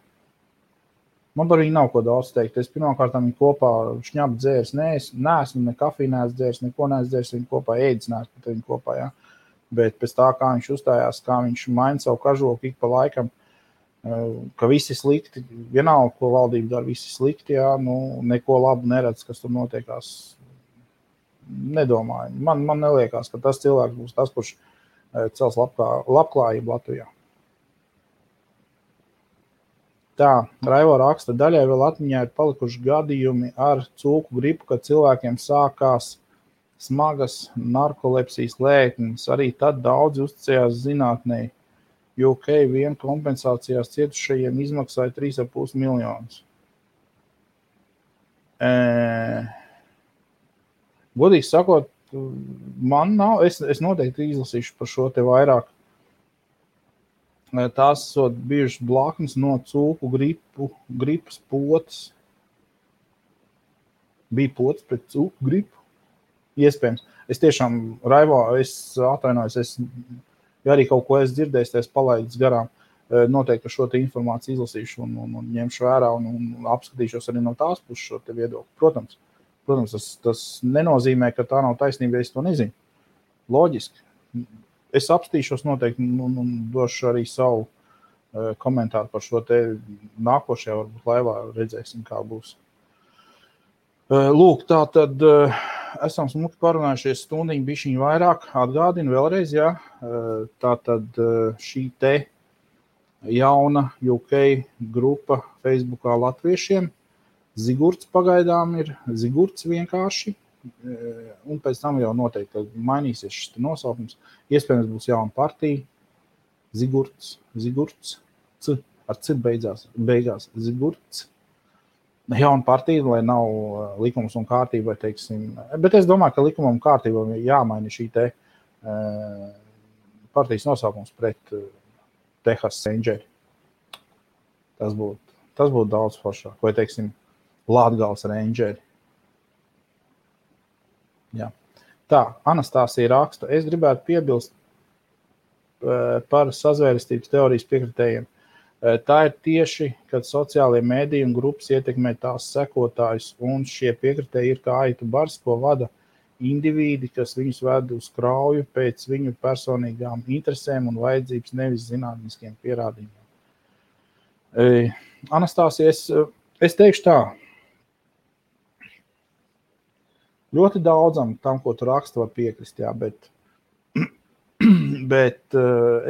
man par viņu nav ko daudz teikt. Es pirmkārt viņu kopā šņapu dzērs, neesmu ne kafiju neesmu dzērs, neko neesmu dzērs, viņu kopā ēdis neesmu pat viņu kopā, ja. Bet pēc tā, kā viņš uzstājās, kā viņš maina savu kažoku ik pa laikam, ka visi slikti, vienalga, ko valdība dara, visi slikti, ja, neko labu neredz, kas tur notiekās, nedomāju. Man neliekās, ka tas cilvēks būs tas, kurš cels labklājību Latvijā. Tā, Raivo raksta, daļai vēl atmiņā ir palikuši gadījumi ar cūku gripu, kad cilvēkiem sākās smagas narkolepsijas lēkmes. Arī tad daudzi uzticējās zinātnei, jo UK vien kompensācijās cietušajiem izmaksāja 3,5 miljonus. Godīgi sakot, man nav, es noteikti izlasīšu par šo te vairāk. Tās esot bijušas blaknes no cūku gripas potes. Bija potes pret cūku gripu? Iespējams. Es tiešām, Raivo, es atvainojos, ja arī kaut ko es dzirdēju, es palaidis garām. Noteikti šo te informāciju izlasīšu un ņemšu vērā un apskatīšos arī no tās puses šo te viedokli. Protams, tas nenozīmē, ka tā nav taisnība, ja es to nezinu. Loģiski. Es apstīšos noteikti un došu arī savu komentāru par šo te nākošajā, varbūt laivā redzēsim, kā būs. Lūk, tā tad esam smuki parunājušies stundiņu bišķiņu vairāk. Atgādinu vēlreiz, jā. Tā tad šī te jauna UK grupa Facebookā latviešiem. Zigurts pagaidām ir Zigurts vienkārši. Un pēc tam jau noteikti mainīsies šis nosaukums. Iespējams būs jauna partija. Zigurts, ar C beigās Zigurts. Jauna partija, lai nav likums un kārtība, teiksim. Bet es domāju, ka likumam un kārtībam jāmaina šī te partijas nosaukums pret Texas Rangeri. Tas būtu daudz foršāk. Vai, teiksim, Latgales Rangeri. Jā. Tā, Anastāsija raksta. Es gribētu piebilst par sazvērestības teorijas piekritējiem. Tā ir tieši, kad sociālie mēdīji un grupas ietekmē tās sekotājus, un šie piekritēji ir kā aitu bars, ko vada indivīdi, kas viņus ved uz krauju pēc viņu personīgām interesēm un vajadzības, nevis zinātniskiem pierādījumiem. Anastāsija, es teikšu tā. Ļoti daudzam tam, ko tu raksti, var piekrist, jā, bet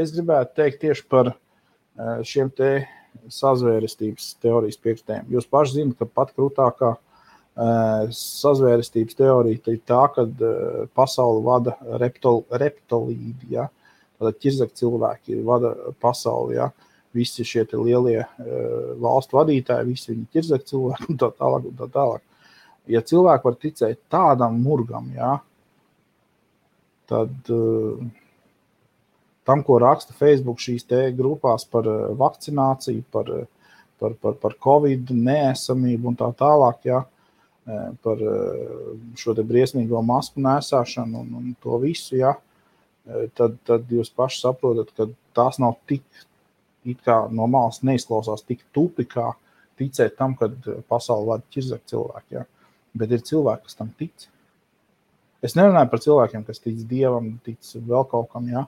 es gribētu teikt tieši par šiem te sazvērestības teorijas piekritējiem. Jūs paši zināt, ka pat krūtākā sazvērestības teorija ir tā, kad pasauli vada reptilīdi, ja? Tātad ķirzak cilvēki vada pasauli, ja? Visi šie te lielie valstu vadītāji, visi viņi ķirzak cilvēki un tā tālāk. Ja cilvēki var ticēt tādam murgam, ja, tad tam, ko raksta Facebook šīs te grupās par vakcināciju, par Covid neesamību un tā tālāk, ja, par šo te briesmīgo masku nesāšanu un to visu, ja, tad jūs paši saprotat, ka tās nav tik, it kā no malas neizklausās tik tupi, kā ticēt tam, kad pasauli vada ķirzak cilvēki, ja. Bet ir cilvēki, kas tam tic. Es nerunāju par cilvēkiem, kas tic Dievam, tic vēl kaut kam, ja.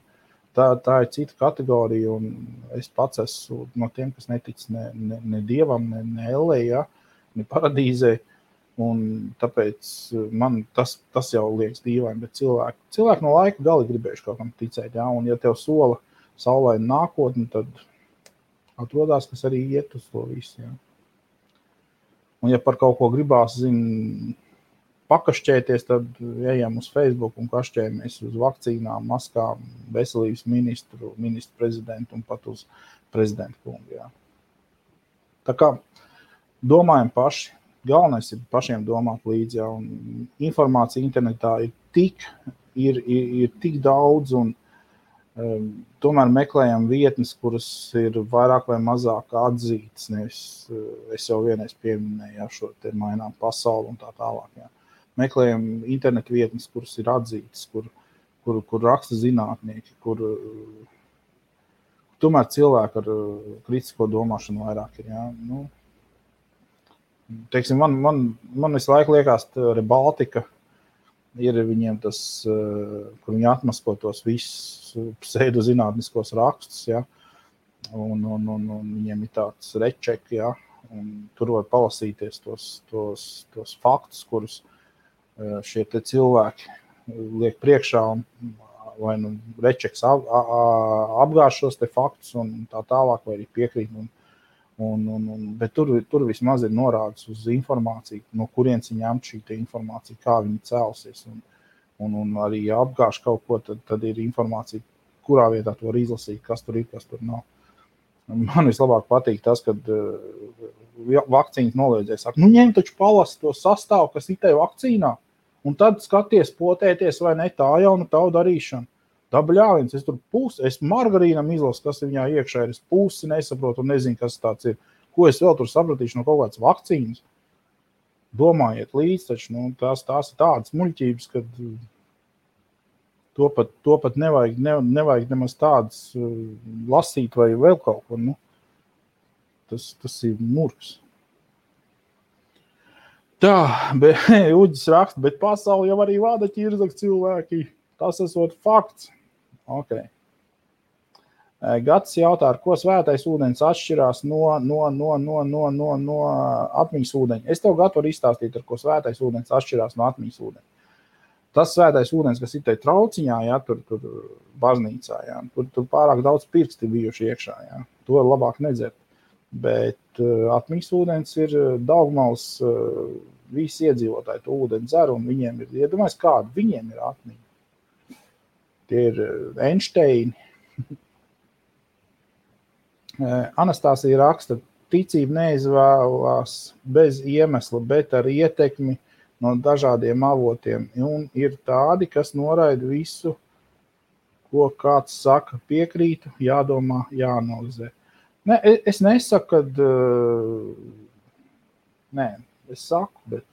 Tā ir cita kategorija, un es pats esmu no tiem, kas netic ne Dievam, ne Ellē, ja, ne paradīzē, un tāpēc man tas jau liekas dīvaini, bet cilvēki no laika gali gribējuši kaut kam ticēt, ja, un ja tev sola saulaina nākotni, tad atrodās, kas arī iet uz to visu, ja. Un ja par kaut ko gribās, pakašķēties, tad ejam uz Facebook un kašķējamies uz vakcīnām, maskām, veselības ministru prezidentu un pat uz prezidentu kungu. Jā. Tā kā domājam paši, galvenais ir pašiem domāt līdzi, jā, un informācija internetā ir tik daudz, un tomēr meklējam vietnes, kuras ir vairāk vai mazāk atzītas, nevis es jau vienreiz pieminēju, jā, šo te mainām pasauli un tā tālāk. Jā. Meklējam internetu vietnes, kuras ir atzītas, kur raksta zinātnieki, kur tomēr cilvēki ar kritisko domāšanu vairāk ir. Jā. Nu, teiksim, man visu laiku liekas, Rebaltika ir viņiem tas, kur viņi atmasko tos visus pseidozinātniskos rakstus, ja, un viņiem ir tāds rečeki, ja, un tur var palasīties tos faktus, kurus šie te cilvēki liek priekšā, vai nu rečeks apgāž šos te faktus un tā tālāk, vai arī piekrīt, bet tur vismaz ir norādes uz informāciju, no kurienes viņi ņemt šī te informācija, kā viņi cēlsies, un arī apgāž kaut ko, tad ir informācija, kurā vietā to var izlasīt, kas tur ir, kas tur nav. Man vislabāk patīk tas, kad vakcīnas noliedzēja saka, ņem taču palasi to sastāvu, kas ir tev vakcīnā, un tad skaties, potēties vai ne, tā jau nu tavu darīšana. Tā bļāviens, es tur es margarīnam izlasu, kas ir viņā iekšā, es pusi nesaprotu un nezinu, kas tāds ir. Ko es vēl tur sapratīšu no kaut kādas vakcīnas? Domājiet līdz, taču tās ir tādas muļķības, kad to pat nevajag nemaz tādas lasīt vai vēl kaut ko. Tas ir murgs. Tā, Uģis raksta, bet pasauli jau arī vada ķirzak cilvēki. Tas esot fakts. Ok. Gatis jautā, ar ko svētais ūdens atšķirās no atmiņas ūdeņa. Es tev gatavu izstāstīt, ar ko svētais ūdens atšķirās no atmiņas ūdeņa. Tas svētais ūdens, kas ir te trauciņā, ja, tur baznīcā, ja, tur pārāk daudz pirksti bijuši iekšā, ja. To ir labāk nedzert. Bet atmiņas ūdens ir Daugmals, visi iedzīvotāji to ūdeni dzer, un viņiem ir, iedomājies kādu, viņiem ir atmiņa. Tie ir Einsteini. Anastāsija raksta, ticība neizvēlās bez iemesla, bet ar ietekmi no dažādiem avotiem. Un ir tādi, kas noraida visu, ko kāds saka, piekrītu, jādomā, jāanalizē. Ne, es nesaku, kad... Nē, es saku, bet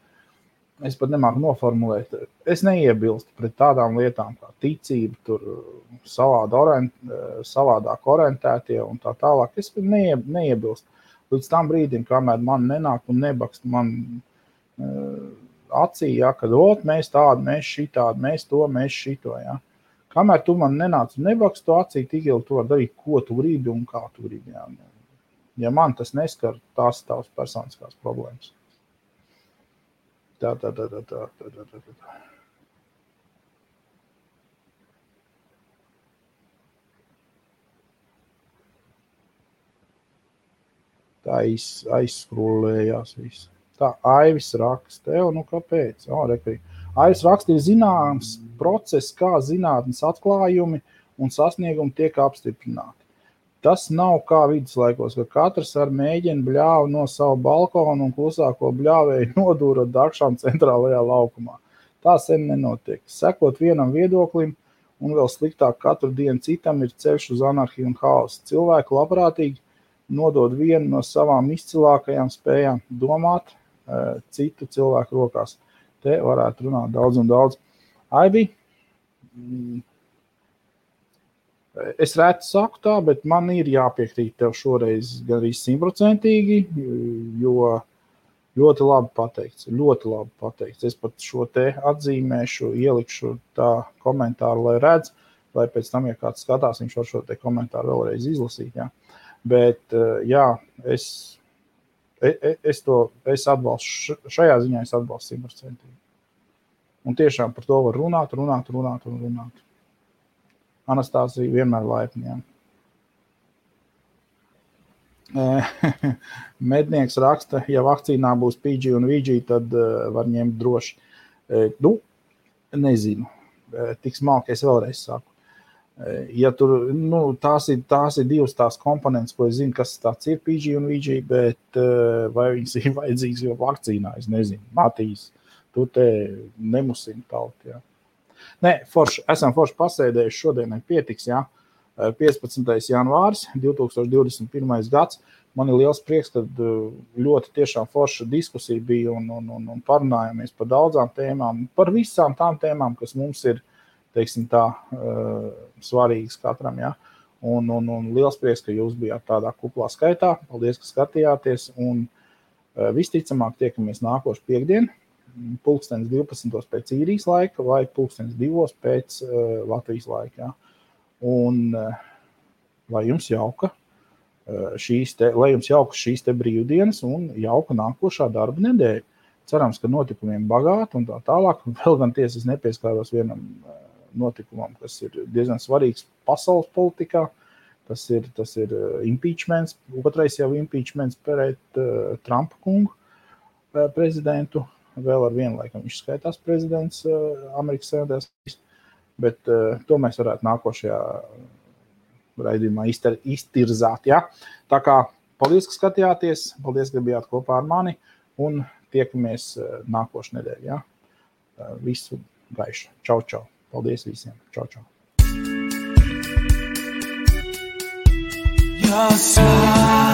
es pat nemāku noformulēt. Es neiebilstu pret tādām lietām kā ticība, tur savādāk orientētie un tā tālāk. Es neiebilstu. Līdz tam brīdim, kamēr man nenāk un nebakst man acī, ja, kad mēs tādi, mēs šitādi, mēs to, mēs šito. Ja. Kamēr tu man nenāc un nebakst to acī, tik ilgi tu var darīt, ko tu gribi un kā tu gribi. Ja, ja man tas neskar, tās tavas personiskās problēmas. Tā. Tā aizskrūlējās viss. Tā Aivis raksta, kāpēc? Aivis raksta, ir zināms process, kā zinātnes atklājumi un sasniegumi tiek apstiprināti. Tas nav kā viduslaikos, ka katrs ar mēģina bļāvu no savu balkonu un klusāko bļāvēju nodūra dakšām centrālajā laukumā. Tā sen nenotiek. Sekot vienam viedoklim un vēl sliktāk katru dienu citam ir ceļš uz anarhiju un haosu. Cilvēki labprātīgi nodod vienu no savām izcilākajām spējām domāt citu cilvēku rokās. Te varētu runāt daudz un daudz. Aibi, es reti saku tā, bet man ir jāpiekrīt tev šoreiz gan arī 100%, jo ļoti labi pateikts. Es pat šo te atzīmēšu, ielikšu tā komentāru, lai redz, lai pēc tam, ja kāds skatās, viņš var šo te komentāru vēlreiz izlasīt. Ja. Bet, jā, es atbalstu, šajā ziņā es atbalstu 100%. Un tiešām par to var runāt. Anastāsija vienmēr laipni. Mednieks raksta, ja vakcīnā būs PG un VG, tad var ņemt droši. Nezinu. Tik smalki es vēlreiz saku. Ja tur, tās ir divas tās komponentes, ko es zinu, kas tāds ir PG un VG, bet vai viņas ir vajadzīgs jau vakcīnā, es nezinu. Matīs, tu te nemusini tauti, jā. Nē, esam forši pasēdējuši, šodienai pietiks, jā. 15. janvāris, 2021. gads. Man ir liels prieks, kad ļoti tiešām forša diskusija bija un parunājāmies par daudzām tēmām, par visām tām tēmām, kas mums ir, teiksim tā, svarīgas katram, jā. Un liels prieks, ka jūs bijāt tādā kuplā skaitā. Paldies, ka skatījāties, un visticamāk tiekamies nākošu piekdienu. 12:00 pēc īrijas laika vai 2:00 pēc Latvijas laika. Ja. Un lai jums jauka šīs te brīvdienas un jauka nākošā darba nedēļa. Cerams, ka notikumiem bagāti un tā tālāk. Vēl gan tiesa es nepieskāros vienam notikumam, kas ir diezgan svarīgs pasaules politikā. Tas ir impeachments, otrais jau impeachments pret Trumpa kungu prezidentu. vēl ar vienu laikam viņš skaitās prezidents Amerikas Savienotās, bet to mēs varētu nākošajā raidījumā iztirzāt. Ja? Tā kā paldies, ka skatījāties, paldies, ka bijāt kopā ar mani un tiekamies nākošu nedēļu. Ja? Visu gaišu. Čau, čau. Paldies visiem. Čau, čau. Your smile